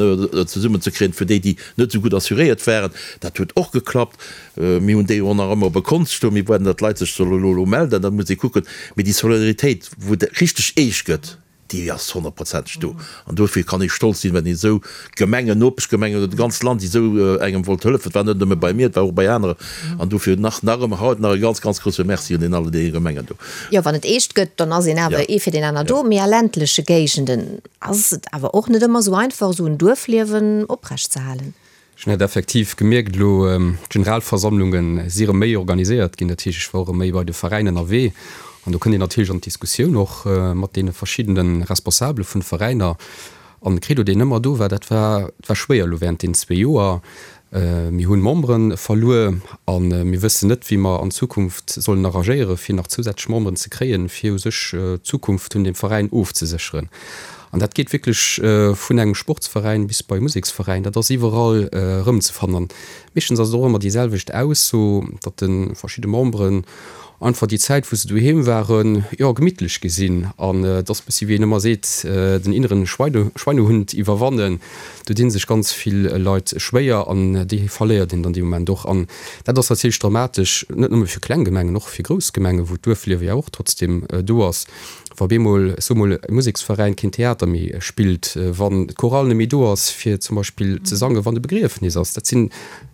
zesummenzekréien fir déi, déi net esou gutt assuréiert waren. Dat huet och geklappt. Mir hunn déi och nach ëmmer op e Kont stoen. Mir waarden, datt d'Leit sech solle elo elo melden, da muss ee kucken. Mee déi Solidaritéit, wou et richteg eescht gëtt, déi ass honnertprozenteg do. An dofir kann ee stolz sinn, wenn een esou Gemengen, Nopeschgemengen oder d'ganzt Land, déi esou engem wollt hëllefen. Et war net nëmme bei mir, et war och bei aneren. An dofir nach nach ëmmer haut nach e ganz, ganz grousse Merci un den alle deene Gemengen do. Jo, wann et eescht gëtt, dann ass een awer ee fir deen aner do. Mee a ländleche Géigenden ass et awer och net ëmmer esou einfach, esou en Duerfliewen oprecht ze halen. Ech hunn dat effektiv gemierkt elo, d'Generalversammlunge si rëm méi organiséiert ginn, dat heescht ech war och rëm méi bei de Veräiner ënnerwee an do kënnt een natierlech an d'Diskussioun och mat deene verschiddene Responsabele vun de Veräiner an de Credo deen ëmmer do war, dat war, et war schwéier elo während deenen zwee Joer, mir hunn Membere verluer a mir wëssen net wéi mer an Zukunft sollen arrangéiere fir nach zousätzlech Memberen ze kréien, fir u sech d'Zukunft vun deem Veräin ofzesécheren. An dat geet wierklech vun engem Sportsveräin bis bei e Museksveräin, dat ass iwwerall erëmzefannen. An meeschtens ass et och ëmmer déi selwecht Ausso, datt de verschidde Memberen einfach déi Zäit, wou se doheem waren, jo, gemittlech gi sinn. An et ass e bëssi, wéi een ëmmer seet, den inneren Schweinehund iwwerwannen. Do di sech ganz vill Leit schwéier an déi verléiert een dann dee Moment och. An dat ass natierlech dramatesch, net nëmme fir kleng Gemengen, och fir grouss Gemengen, wou d'Duerfliewe jo och trotzdeem do ass. Wa bemol, ech soe mol, e Museksveräin keen Theater méi spillt, wann d'Chorale net méi do ass fir zum Beispill ze sangen, wann e Begriefnis ass, dat sinn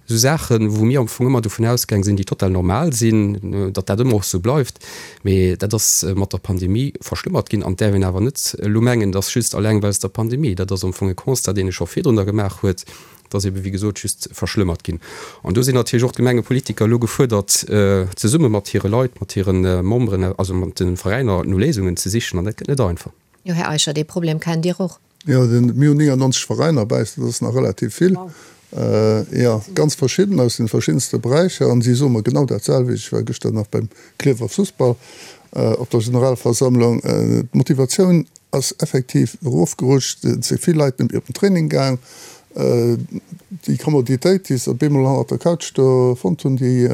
esou Saachen, wou mir am Fong ëmmer dovun ausgaang sinn, déi total normal sinn, datt dat ëmmer och esou bleift. Mee dat ass mat der Pandemie verschlëmmert ginn. An et däerf een awer net elo mengen, et ass just alleng weinst der Pandemie. Dat ass am Fong e Constat, deen ee scho virdrun da gemaach huet. Et ass ebe wéi gesot just verschlëmmert ginn. An do sinn natierlech och d'Gemengepolitiker elo gefuerdert, zesumme mat hire Leit, mat hire Memberen, also mat de Veräiner no Léisungen ze sichen. An dat gëtt net einfach. Jo, Här Eicher, dee Problem kennt Dir och. Jo, mir hunn 99 Veräiner bäi eis, dat ass nach relativ vill. Jo, ganz verschidden, aus de verschiddenste Beräicher. An si soe mer genau dat selwecht. Ech war gëschter nach beim Klierfer Fussball op der Generalversammlung. D'Motivatioun ass effektiv erofgerutscht, et si vill Leit net méi op den Training gaang. Déi Kommoditéit, déi se op eemol hannert der Couch do fonnt hunn, déi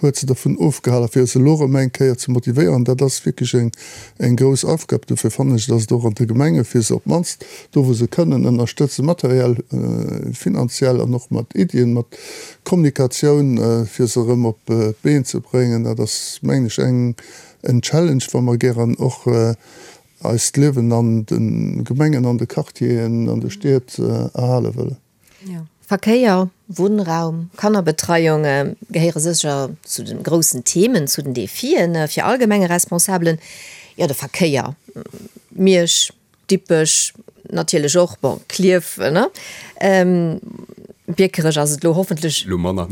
huet se dervun ofgehalen, fir se elo erëm eng Kéier ze motivéieren. Dat ass wierklech eng, eng grouss Aufgab. Dofir fannen ech, dass et och an de Gemenge fir se op d'mannst do, wou se kënnen, ënnerstëtzen, materiell, finanziell an och mat Iddien, mat Kommunikatioun, fir se erëm op d'Been ze bréngen. Dat ass, mengen ech, eng, en Challenge, wa mer gären och eist Liewen an de Gemengen, an de Quartieren, an de Stied erhale wëllen. Verkéier, Wunnraum, Kannerbetreiung gehéiere sécher zu de groussen Themen, zu den Defien fir all Gemengeresponsabelen. Jo, de Verkéier, Miersch, Dippech natierlech och, bon, Klierf, ne? Biekerech ass et elo hoffentlech Elo manner.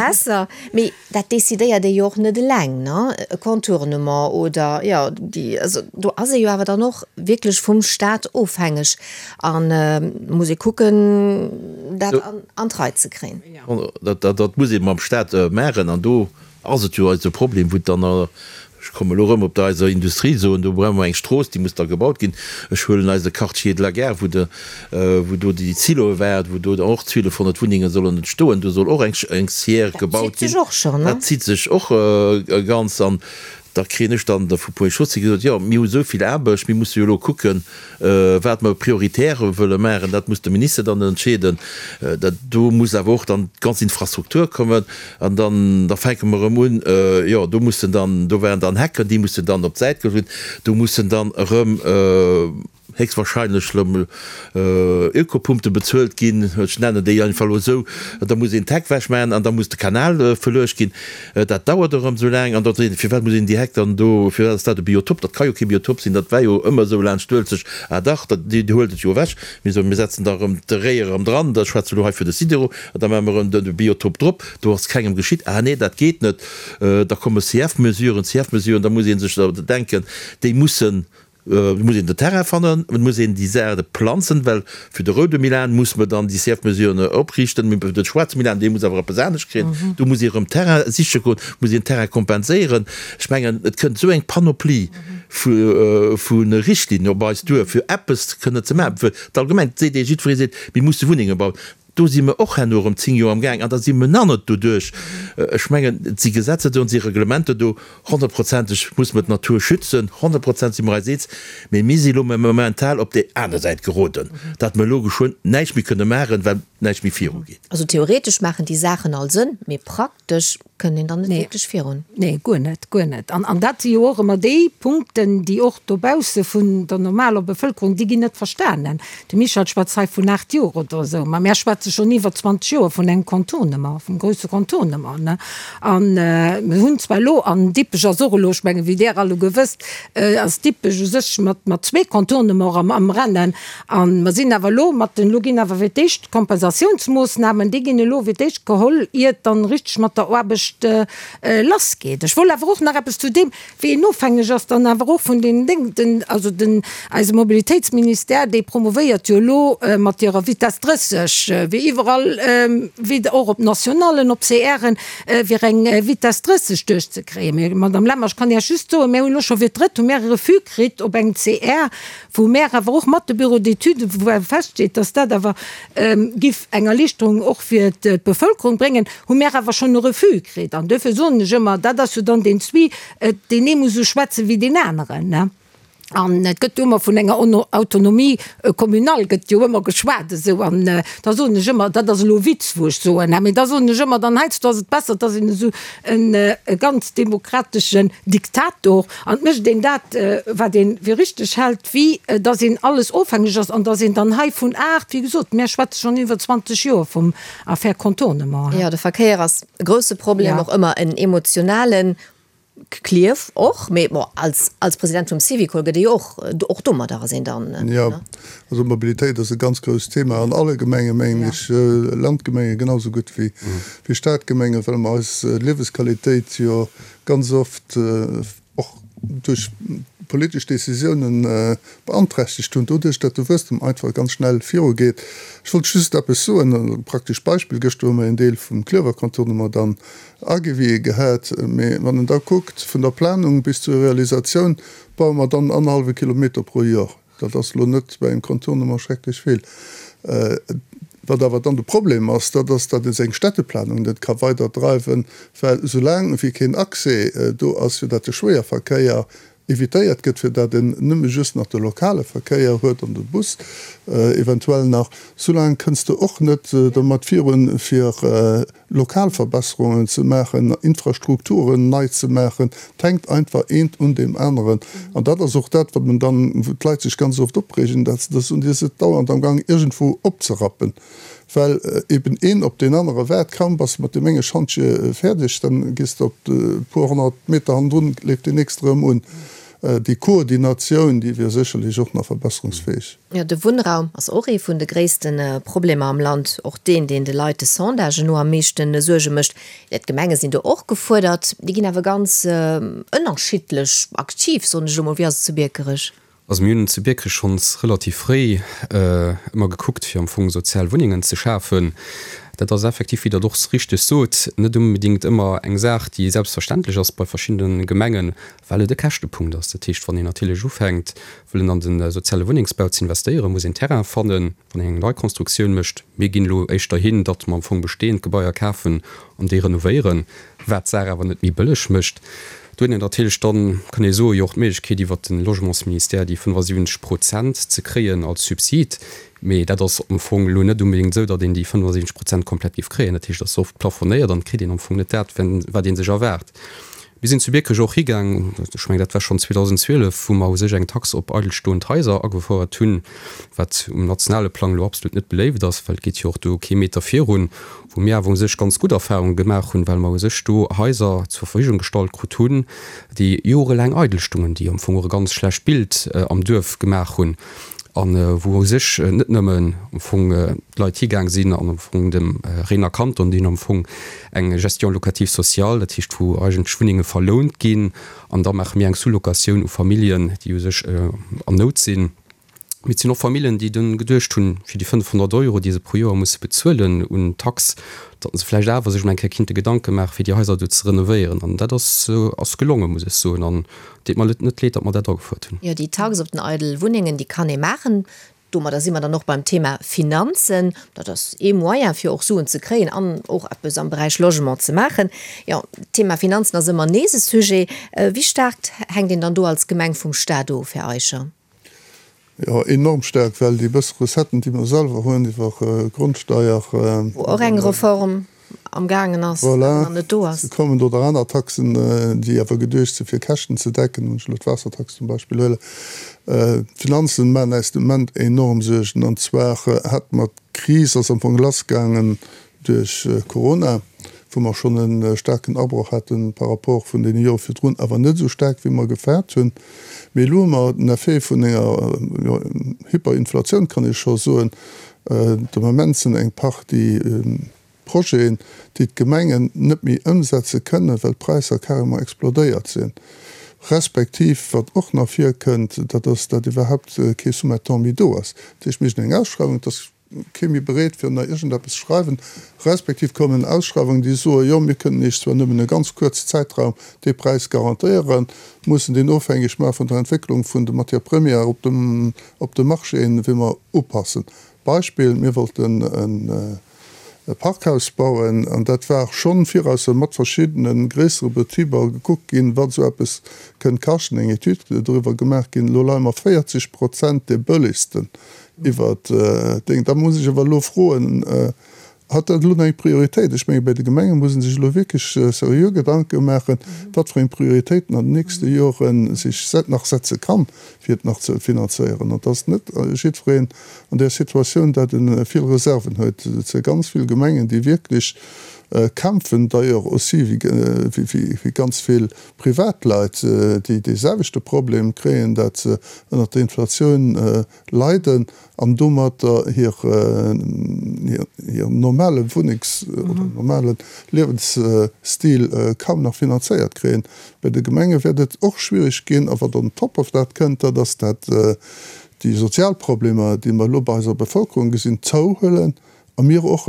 besser. Mee dat decidéiert ee jo och net eleng, ne? E Contournement oder, jo, déi, also do ass ee jo awer dann och wierklech vum Staat ofhängeg an muss ee kucken, dat an d'Rei ze kréien. Dat muss ee mam Staat maachen an do ass et jo eise Problem, wou dann, ech kommen elo erëm op der eiser Industrie soen, do brauche mer eng Strooss, déi muss da gebaut ginn. Ech huelen eise Quartier de la Gare, wou de, wou do déi Siloe waren, wou do och 1.200 Wunnenge sollen entstoen, do soll och eng eng Scière gebaut ginn. Dat zitt sech och schonn, ne? Dat zitt sech och ganz. An. Da kréien ech dann vu Ponts et Chaussées gesot, jo, mir hu esou vill Aarbecht, mir musse jo elo kucken, wat mer prioritär wëlle maachen. Dat muss de Minister dann entscheeden. Dat do muss awer och dann d'ganz Infrastruktur kommen. An dann, da fänke mer erëm un, jo, do mussen dann, do waren dann Hecken, déi mussen dann op d'Säit geholl ginn, do mussen dann erëm, héchstwahrscheinlech elo Ökopumpte bezuelt ginn, ech nennen déi einfach elo esou, da muss een d'Heck wechmaachen an da muss de Kanal verluecht ginn. Dat dauert erëm esou laang an da seet een, firwat muss een déi Heck dann do, firwat ass dat e Biotop? Dat ka jo kee Biotop sinn, dat war jo ëmmer esou laanscht d'Uelzecht. Ah dach, dat, Dir huelt et jo ewech. Mir soen, mir setzen da erëm de Réi erëm dran, da schwätze elo hei fir de Sidero, an da maache mer erëm de Biotop drop, do ass kengem geschitt. Ah nee, dat geet net. Da komme CF-Mesuren, CF-Mesuren, da muss ee sech da denken, déi mussen Et muss een den Terrain fannen, et muss een déi Saarte planzen, well fir de roude Milan muss mer dann déi CF-Mesuren opriichten, mee fir de schwaarze Milan, dee muss awer eppes anescht kréien, do muss ee erëm Terrain siche goen, muss een Terrain kompenséieren. Ech mengen, et kënnt esou eng Panoplie vu Richtlinnen op eis duer, fir eppes kënne ze maachen. Fir d'Allgemeng seet ee, jiddweree seet, mir musse Wunnenge bauen. Do si mer och herno erëm 10 Joer am Gaang an da si mer nach net doduerch. Ech mengen, et si Gesetzer do an et si Reglementer do. Honnertprozenteg muss mer d'Natur schützen, 100 Prozent si mer eis eens. Mee mir si elo momental op déi aner Säit geroden, datt mer elo geschwënn näischt méi kënne maachen, well näischt méi virugeet. Also theoretesch maachen déi Saachen all Sënn, mee praktesch kënnt een dann net wierklech virun. Nee, guer net, guer net. An, an dat si jo och ëmmer déi Punkten, déi och dobausse vun der normaler Bevëlkerung, déi ginn net verstanen. De Michel schwätzt hei vun 8 Joer oder esou, ma mär schwätze schonn iwwer 20 Joer vun engem Contournement, vum grousse Contournement, ne. An mir hunn zwar elo, an Dippech ass och elo, ech mengen, wéi Der alleguer wësst, ass Dippech u sech mat, mat zwee Contournements am, am Rennen. A mer sinn awer elo mat den, elo ginn awer fir d'éischt d'Kompensatiounsmoossnamen, déi ginn elo fir d'éischt geholl, iert dann richteg mat der Aarbecht lassgeet. Ech wollt awer och nach eppes zu deem, wéi een ofhängeg ass dann awer och vun den Déng, den, also den, eise Mobilitéitsministère, dee promouvéiert jo elo mat hirer Vitesse 30, wéi iwwerall, wéi och op Nationallen, op CRen, fir eng Vitesse 30 duerchzekréien. Mee, Madame Lemmer, ech kann Iech just soen, mir hunn elo scho fir d'drëtt hu mir e Refus kritt op engem CR, wou mär awer och mat de Bureaux d'études, wou awer feststeet, dass dat awer giff eng Erlichterung och fir d'Bevölkerung bréngen, hu mär awer schonn e Refus kritt. An duerfir soen ech ëmmer, dat ass jo dann deen Zwie, deen ee muss esou schwätzen wéi deen aneren, ne? An et gëtt jo ëmmer vun enger Autonomie communale gëtt jo ëmmer geschwat esou. An da soen ech ëmmer, dat ass elo e Witz, wou ech soen, mä da soen ech ëmmer, dann heiansdo ass et besser, et ass een esou e ganz demokrateschen Diktator an et mécht een dat, wat ee fir richteg hält, wéi datt een alles ofhängeg ass an datt een dann hei vun 8, wéi gesot, mär schwätze schonn iwwer 20 Joer vum Affaire Contournement. Jo, de Verkéier ass e grousse Problem, och ëmmer en emotionalen, Klierf och, mee bon, als, als President vum Syvicol gëtt ee jo och, och domadder ass een dann, ne? Jo, also Mobilitéit ass e ganz grousst Thema an alle Gemengen, mengen ech, Landgemenge genau sou gutt wéi, wéi Stadgemengen, well mer eis Liewesqualitéit jo ganz oft och duerch politesch Décisiounen beanträchtegt hunn, doduerch datt de Wuesstem einfach ganz schnell virugeet. Ech wollt just eppes soen, e praktescht Beispill, Gëschter hu mer een Deel vum Klierfer Contournement dann Agewië gehat, mee wann en da kuckt, vun der Planung bis zur Realisatioun baue mer dann annerhallwe Kilometer pro Jor. Dat ass elo net bei engem Contournement schrecklech vill. Wat awer dann de Problem ass, dat ass, datt ee seng Städteplanung net ka weiderdreiwen, well soulaang wéi keen Accès do ass, fir datt de Schwéierverkéier evitéiert gëtt, fir datt en nëmme just nach de lokale Verkéier huet an de Bus eventuell nach, soulaang kënns de och net domat virun, fir lokal Verbesserungen ze maachen, Infrastrukturen nei ze maachen. Et hänkt einfach eent un deem aneren. An dat ass och dat, wat men dann, wou d'Leit sech ganz oft opreegen, datt se da soen, Dir sidd dauernd amgang iergendwou opzerappen. Well eben een op deen anere waart. Kaum bass de mat deem enge Schantje fäerdeg, dann gees de op e puer 100 Meter hannendrun, leeft deen nächste erëm un. Déi Koordinatioun, déi wier sécherlech och nach verbesserungsfäeg. Jo, de Wunnraum ass och ee vun de gréisste Problemer am Land. Och deen, deen de Leit de Sondagen no am meeschte Suerge mécht. D'Gemenge sinn do och gefuerdert. Déi ginn awer ganz ënnerschiddlech aktiv, soen ech elo mol. Wéi ass et zu Biekerech? Also mir hunn zu Biekerech schonns relativ fréi ëmmer gekuckt, fir am Fong sozial Wunnengen ze schafen. Dat ass effektiv, wéi Der et och richteg sot, net unbedéngt ëmmer eng Saach, déi selbstverständlech ass bei verschiddene Gemengen, well et e Käschtepunkt ass. Dat heescht, wann een natierlech ufänkt, wëllen an de soziale Wunnengsbau ze investéieren, muss een Terrain fannen, wann een eng Neikonstruktioun mécht. Mir ginn elo éischter hin, datt mer am Fong bestehend Gebaier kafen an déi renovéieren, wat d'Saach awer net méi bëlleg mécht. Do huet een natierlech dann, kann ee soen, jo och d'Méiglechkeet iwwert de Logementsministère déi 75 Prozent ze kréien als Subsid. Mee dat ass am Fong elo net onbedéngt esou, datt een déi 75 Prozent komplett géif kréien. Dat heescht, et ass oft plafonéiert an et kritt een am Fong net dat, wat ee sech erwaart. Mir sinn zu Biekerech och higaang, ech mengen, dat war schonn 2012, wou mer u sech eng Tax op eidelstoend Haiser agefouert hunn, wat um nationale Plang elo absolut net beléift ass, well et geet jo och do kee Meter virun, wou mir awer u sech ganz gutt Erfahrunge gemaach hunn, well mer u sech do Haiser zur Verfügung gestallt krut hunn, déi jorelaang eidel stungen, déi am Fong och e ganz schlecht Bild am Duerf gemaach hunn a wou u sech net nëmmen am Fong d'Leit higaang sinn an am Fong dem Réner Kanton, déi hunn am Fong eng Gestion locative sociale, dat heescht wou eigentlech Wunnenge verlount ginn an da maache mir eng Sous-locatioun u Familljen, déi u sech an Nout sinn. Mee et sinn och Familljen, déi dunn geduecht hunn, fir déi 500 Euro, déi se pro Joer musse bezuelen un Tax, datt se vläicht awer sech mol eng Kéier kinnte Gedanke maachen, fir déi Haiser do ze renovéieren. An dat ass ass gelongen, muss ech soen. An et deet mer net leed, datt mer dat agefuert hunn. Jo, déi Tax op den eidel Wunnengen, déi kann ee maachen. Domadder si mer dann och beim Thema Finanzen. Dat ass ee Moyen, fir och Suen ze kréien an och eppes am Beräich Logement ze maachen. Jo, d'Thema Finanzen ass ëmmer nees e Sujet. Wéi staark hänkt een dann do als Gemeng vum Staat of, Här Eicher? Jo, enorm staark, well déi bësse Recetten, déi mer selwer hunn iwwer Grondsteier. Wou och eng Reform am gaangen ass, awer nach net do ass. Voilà, se kommen oder aner Taxen, déi awer geduecht si fir Käschten ze decken, wann ech elo d'Waassertax zum Beispill huelen. D'Finanzen maachen äis de Moment enorm Suergen. An zwar hat mer d'Kris ass am Fong lassgaangen duerch Corona, wou mer schonn e staarken Abroch hate par rapport vun deene Jore virdrun, awer net esou staark wéi mer gefaart hunn. Mee elo hu mer den Effet vun enger, jo, Hyperinflatioun, kann ee scho soen. De Moment sinn eng Partie Projeten, déi d'Gemengen net méi ëmsetze kënnen, well d'Präisser carrément explodéiert sinn. Respektiv, wat och nach virkënnt, dat ass, datt iwwerhaupt kee Sous-mettant méi do ass. Dat heescht, mir hunn eng Ausschreiwung, et ass kee méi bereet fir ënner iergendeppes ze schreiwen, respektiv kommen Ausschreiwungen, déi soen, jo mir kënnen Iech zwar nëmmen e ganz kuerze Zäitraum dee Präis garantéieren, mussen deen ofhängeg maache vun der Entwécklung vun de Matières premières op dem op de Marchéen, wéi mer upassen. Beispill, mir wollten e Parkhaus bauen an dat war schonn virausser mat verschiddene gréissere Betriber gekuckt ginn, wat esou eppes kënnt kaschten, eng Etüd doriwwer gemaach ginn. Elo leie mer 40 Prozent dee bëllegsten Iwwert Déng. Da muss ech awer elo froen, Hat dat elo nach eng Prioritéit? Ech menge bei de Gemenge muss ee sech elo wierklech seriö Gedanke maachen, wat fir eng Prioritéiten an den nächste Jore sech nach setze kann, fir et nach ze finanzéieren. An et ass net jiddwereen an där Situatioun, dat e vill Reserven huet. Et si ganz vill Gemengen, déi wierklech kämpfen, d'ailleurs aussi wéi ganz vill Privatleit, déi dee selwechte Problem kréien, dat se ënnert der Inflatioun leiden an domatter hir normale Wunnengs oder normale Liewensstil kaum nach finanzéiert kréien. Bei de Gemenge wäert et och schwierig ginn. A wat on top of dat kënnt, dat ass dat déi sozial Problemer, déi mer elo bei eiser Bevölkerung gesinn, zouhuelen a mir och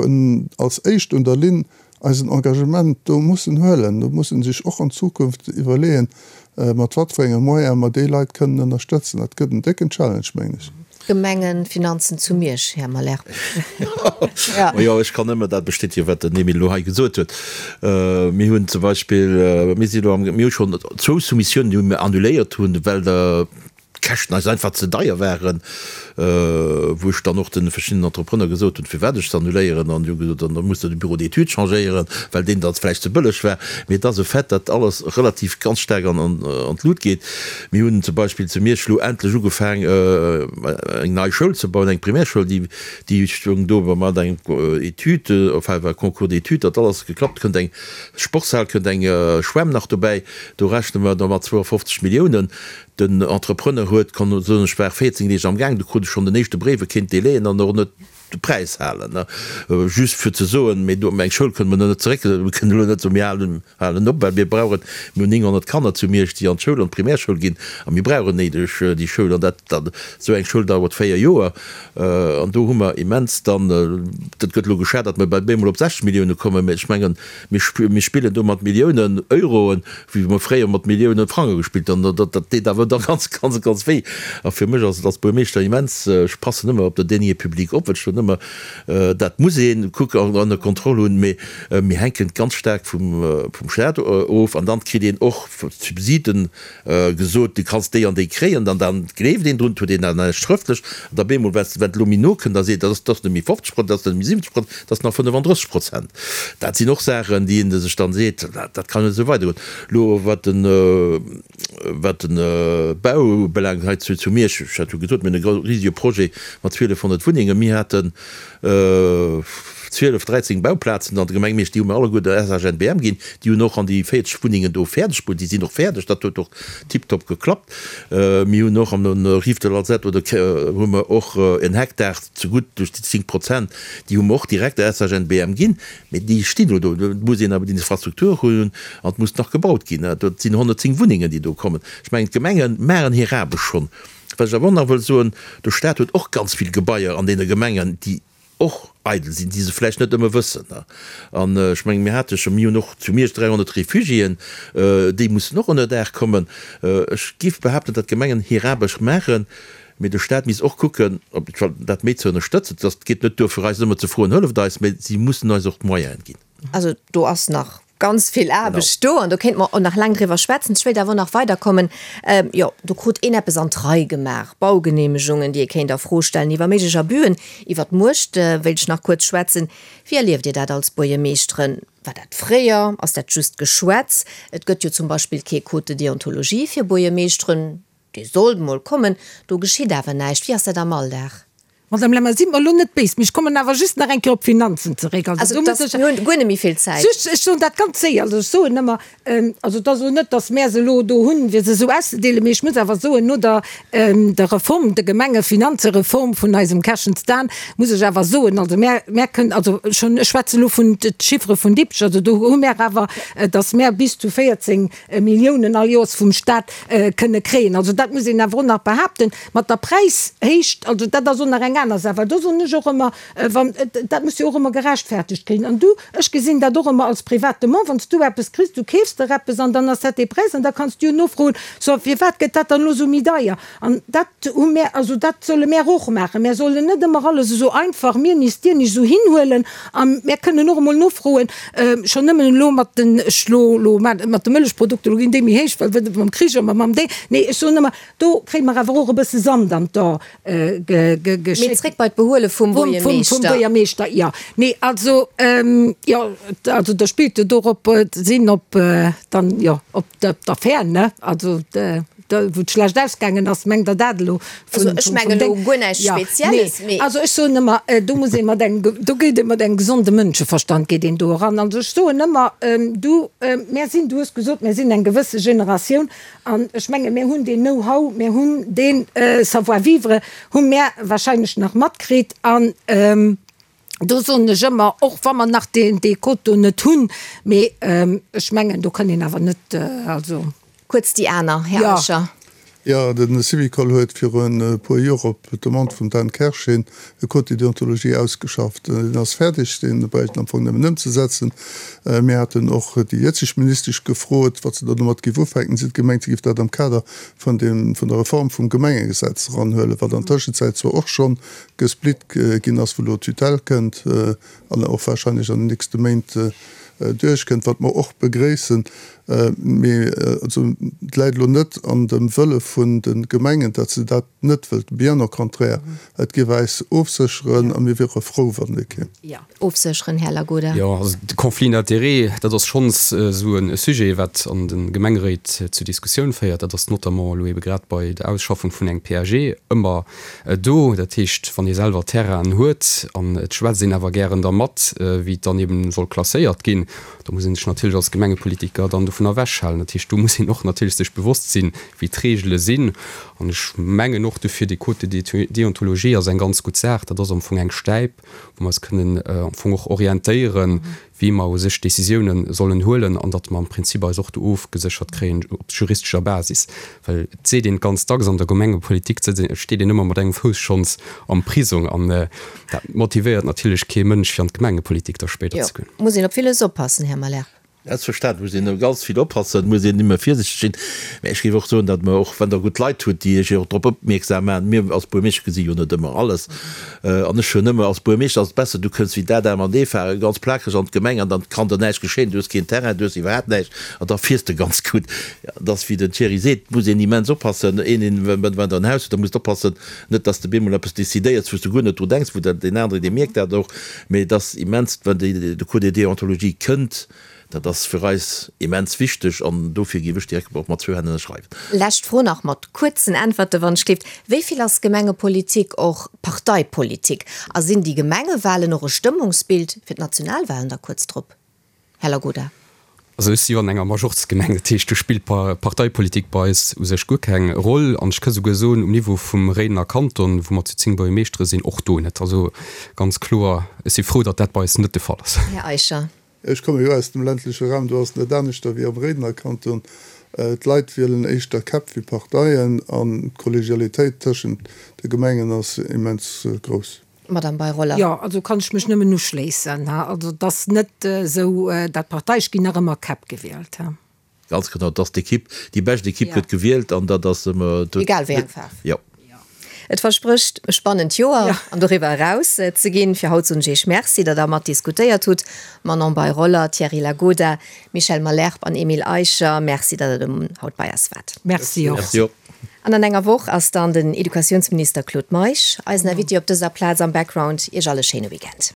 als éischt un der Linn eisen Engagement do mussen huelen. Do muss ee sech och an Zukunft iwwerleeën, mat wat fir enge Moyene mer déi Leit kënnen ënnerstëtzen. Dat gëtt en décken Challenge, mengen ech. Gemengenfinanzen zu Miersch, Här Malherbe. Majo, ech kann nëmme dat bestätegen, wat den Emile elo hei gesot huet. Mir hunn zum Beispill, mir sinn elo am, mir hu schonn zwou Soumissiounen, déi mir annuléiert hunn, well der d'Käschten eis einfach ze deier waren, wou ech dann och de verschiddenen Entrepreneur gesot hunn, firwat ech se annuléieren, an déi hu gesot, dann muss der de Bureau d'études changéieren, well deen dann vläicht ze bëlleg war. Mee et ass e Fait, datt alles relativ ganz staark an d'Lut geet. Mir hunn zum Beispill zu Miersch elo endlech ugefaang, eng nei Schoul ze bauen, eng Primärschoul, déi déi stoung do mat engem Etüd, enfin war Concours d'études, datt alles geklappt, kënnt eng Sportshal, kënnt eng Schwämm nach dobäi, do rechne mer da mat 52 Milliounen. Den Entrepreneur huet, kann soen, ech war 14 Deeg am Gaang, du krut ech schonn den éischte Bréif, e kéint Délaiën an och net de Präis halen. Just fir ze soen, mee do, eng Schoul kënne mer net zeréck, mir kënnen elo net soen, mir halen, halen op, well mir brauchen, mir hunn 900 Kanner zu Miersch, déi an d'Schoul, an d'Primärschoul ginn, a mir brauchen néideg déi Schoul. An dat, dat, esou eng Schoul dauert 4 Joer. An do hu mer immens dann, dat gëtt elo geschat, datt mer bei bemol op 60 Millioune kommen, mä ech mengen, Mir spillen do mat Milliounen Euroen, wéi mer fréier mat Milliounen Frange gespillt hunn. Dat deet awer da ganz, ganz, ganz wéi. A fir mech ass et als Buermeeschter immens, ech passen ëmmer op den Deniers publics op, well ech do. ëmmer, dat muss ee kucken an ënner Kontroll hunn, mee mir hänken ganz staark vum Staat of an dann kritt een och Subsiden gesot, du kanns déi an déi kréien, dann dann gleeft een drun, huet een dat näischt schrëftlech an da bemol, wat wat elo méi no kënnt, da seet, dat ass dat ass net méi 50 Prozent, dat ass net méi 70 Prozent, dat ass nach 35 Prozent. Dat sinn och Saachen, déi ee sech dann seet, dat dat kann net esou weidergoen. Elo wat den wat den Bau ubelaangt hei zu zu Miersch, ech hat jo gesot, mir hunn e risege Projet mat 1.200 Wunnengen, mir haten 12, 13 Bauplazen an der Gemeng Miersch, déi hu mir alleguer der SHNBM ginn. Déi hunn och an déi 40 Wunnengen do fäerdeg bruet. Déi sinn och fäerdeg, dat huet och tiptop geklappt. Mir hunn och an der Rive de l'Alzette oder hu mer och en Hektar zegutt duerch déi 10 Prozent, déi hu mer och direkt der SHNBM ginn. Mee déi stinn elo do. Et muss een awer déi Infrastruktur hunn an et muss nach gebaut ginn. Dat sinn 110 Wunnengen, déi do kommen. Ech mengen, d'Gemenge maachen hir Aarbecht schonn. Wat ech awer och nach wëll soen, De Stat huet och ganz vill Gebaier an deene Gemengen, déi och eidel sinn, déi se vläicht net ëmmer wëssen. An ech mengen, mir hate scho, mir hunn och zu Miersch 300 Refugiéen, déi mussen och ënner Daach kommen. Ech géif behaapten, datt d'Gemengen hir Aarbecht maachen, mee de Stat misst och kucken, op dat méi ze ënnerstëtzen. Et geet net duer, fir eis ëmmer ze froen, Hëlleft eis, mee si mussen eis och d'Moyene ginn. Also do ass nach ganz vill Aarbecht do an do kéinte mer och nach laang driwwer schwätzen. Ech wéilt awer och nach weiderkommen. Jo, do krut een eppes an d'Rei gemaach, Baugeneemegungen, déi ee kéint a Fro stellen, iwwer méiglech Abüen, iwwer d'Muecht wéilt ech nach kuerz schwätzen. Wéi erlieft Dir dat als Buergermeeschteren? War dat fréier? Ass dat just Geschwätz? Et gëtt jo zum Beispill kee Code de déontologie fir Buergermeeschteren. Dee sollt mol kommen, do geschitt awer näischt. Wéi ass dat am Alldag? Madame Lemmer, sidd mer elo net béis, mee ech kommen awer just nach eng Kéier op d'Finanzen zeréck. Also do muss ech. Mir hunn guer net méi vill Zäit. Just, ech soen dat ganz séier. Also ech soen ëmmer, also et ass elo net, datt mär se elo do hunn, fir se esou auszedeelen, mee ech muss awer soen, no der der Reform, der Gemengefinanzereform vun eisem Kerschens Dan, muss ech awer soen, also mär, mär kënnen, also schonn, ech schwätze elo vun de Chiffere vun Dippech, also do hu mär awer, datt mär bis zu 14 Milliounen all Joers vum Stat kënne kréien. Also dat muss een awer och nach behaapten. Mat der Präishéicht, also dat ass och nach eng aner Saach, well do soen ech och ëmmer, wann, dat muss jo och ëmmer gerechtfertegt kréien. An du, ech gesinn dat och ëmmer als private Mann, wann s du eppes kriss, du keefs der eppes an dann ass dat dee Präis an da kanns du jo nofroen, so firwat gëtt dat dann elo esou méi deier? An dat hu mär, also dat solle mär och maachen. Mär sollen net ëmmer alles esou einfach, mir nicht, dir nicht, esou hinhuelen. A mär kënnen och emol nofroen, schonn nëmmen elo mat den, ech lo elo mat de Mëllechprodukter, elo ginn déi méi héich, well wëll mam Krich a mam déi, nee, ech soen ëmmer, do kréie mer awer och e bësse Sand an d'A geschéckt. Mee zréck bei d'Behuele vum Buergermeeschter. Vum Buergermeeschter, jo. Nee, also, jo, also da spillt jo dorop, sinn op dann, jo, op d'Affär, ne, also. Wou et schlecht ausgaangen ass, mengt Der dat elo? Also ech mengen elo guer näischt Spezielles, mee. Also ech soen ëmmer, do muss ee mat engem, do geet ee mat engem gesonde Mënscheverstand geet een do eran. Also ech soen ëmmer, du, mär sinn, du hues gesot, mär sinn eng gewësse Generatioun an ech menge mär hunn deen Know-how, mär hunn dee Savoir-vivre hu mär wahrscheinlech nach matkritt an, Do soen ech ëmmer, och wa mer nach deen, dee Code do net hunn, mee ech mengen, do kann een awer net, also. Kuerz déi aner, Här Eicher. Jo, de Syvicol huet virun e puer Joer op Demande vum Dan Kersch hin e Code de déontologie ausgeschafft. Deen ass fäerdeg, dee bräicht een am Fong nëmmen ëmzesetzen. Mir haten och déi jëtzeg Ministesch gefrot, wat se da domat géif ufänken. Si huet gemengt, si géif dat am Kader vun deem, vun der Reform vum Gemengegesetz eranhuelen, wat an Tëschenzäit zwar och schonn gesplitt ginn ass, wou elo d'Tutelle kënnt an och wahrscheinlech an den nächste Méint duerchkënnt, wat mer och begréissen. Mee also et läit elo net an dem Wëlle vun de Gemengen, datt se dat net wëllten, bien au contraire, et géif äis ofsécheren a mir wiere frou, wann dee kéim. Ofsécheren, Här Lagoda. Jo, also de Conflit d'intérêts, dat ass schonns esou e Sujet, wat an de Gemengeréit zu Diskussioun féiert. Dat ass notamment elo ebe grad bei der Ausschaffung vun engem PAG ëmmer do. Dat heescht, wann ee selwer Terrainen huet an et schwätzt een awer gären dermat, wéi et dann eben soll klasséiert ginn, da muss ee sech natierlech als Gemengepolitiker dann dovun ewechhalen. Dat heescht, do muss een och natierlech sech bewosst sinn, wéi d'Regele sinn. An ech mengen och dofir, dee Code de déontologie ass eng ganz gutt Saach. Dat ass am Fong eng Stäip, wou mer eis kënnen am Fong och orientéieren, wéi mer u sech Décisiounen sollen huelen an datt mer am Prinzip eis och do ofgeséchert kréien op juristescher Basis. Well et seet een ganz dacks, an der Gemengepolitik steet een ëmmer mat engem Fouss schonns am Prisong an dat motivéiert natierlech kee Mënsch, fir an d'Gemengepolitik da spéider ze goen. Jo, muss een op villes oppassen, Här Muller. Selbstverständlech muss een ganz vill oppassen, muss een ëmmer virsichteg sinn. Mä ech géif och soen, datt mer och, wann Der gutt Leit hutt, déi Iech och drop opmierksam maachen, mir als Buermeeschter gesi jo net ëmmer alles, an ech hunn ëmmer, als Buermeeschter ass et besser, du kënns wéi d'Adam an d'Eva ganz plakeg an d'Gemeng an dann kann der näischt geschéien, du hues keen Terrain, du hues iwwerhaapt näischt an da fiers de ganz gutt. Et ass wéi den Thierry seet, et muss een immens oppassen, een, een, wann Der en Haus hutt, da musst oppassen, net datt s de bemol eppes decidéiers, wou s de guer net dru denks, wou deen anere, dee mierkt dat och. Mee et ass immens, wann de Code de déontologie kënnt, dat ass fir eis immens wichteg an dofir géif ech direkt och mat zwou Hänn ënnerschreiwen. Lescht Fro nach mat kuerzen Äntwerte wann ech gleeft. Wéi vill ass Gemengepolitik och Parteipolitik? A sinn déi Gemengewahlen och e Stëmmungsbild fir d'Nationalwahlen da kuerz drop? Här Lagoda. Also ech si jo an enger Majorzgemeng, dat heescht do spillt Parteipolitik bei eis u sech guer keng Roll. An ech ka souguer soen, um Niveau vum Réidener Kanton, wou mer zu 10 Buergermeeschtere sinn, och do net. Also ganz kloer, ech si frou, datt dat bei eis net de Fall ass. Här Eicher. Ech komme jo aus dem ländleche Raum, do ass et net aneschter wéi am Réidener Kanton. D'Leit wielen éischter Käpp wéi Parteien an d'Kollegialitéit tëschent de Gemengen ass immens grouss. Madame Bei-Roller. Jo, also kann ech mech nëmmen uschléissen. Also et ass net esou, dat d'Partei, ech ginn nach ëmmer Käpp gewielt. Ganz genau, et ass d'Ekipp, déi bescht Ekipp gëtt gewielt an dat ass ëmmer. Egal wéi eng Faarf. Jo. Et versprécht e spannend Joer an doriwwer eraus ze ginn. Fir haut soen ech Iech Merci, datt Der mat diskutéiert hutt. Manon Bei-Roller, Thierry Lagoda, Michel Malherbe an Emile Eicher, Merci, datt Der haut bei eis waart. Merci och. Merci och. An an enger Woch ass dann den Educatiounsminister Claude Meisch eisen Invité op dëser Plaz am Background. Iech all e schéine Weekend.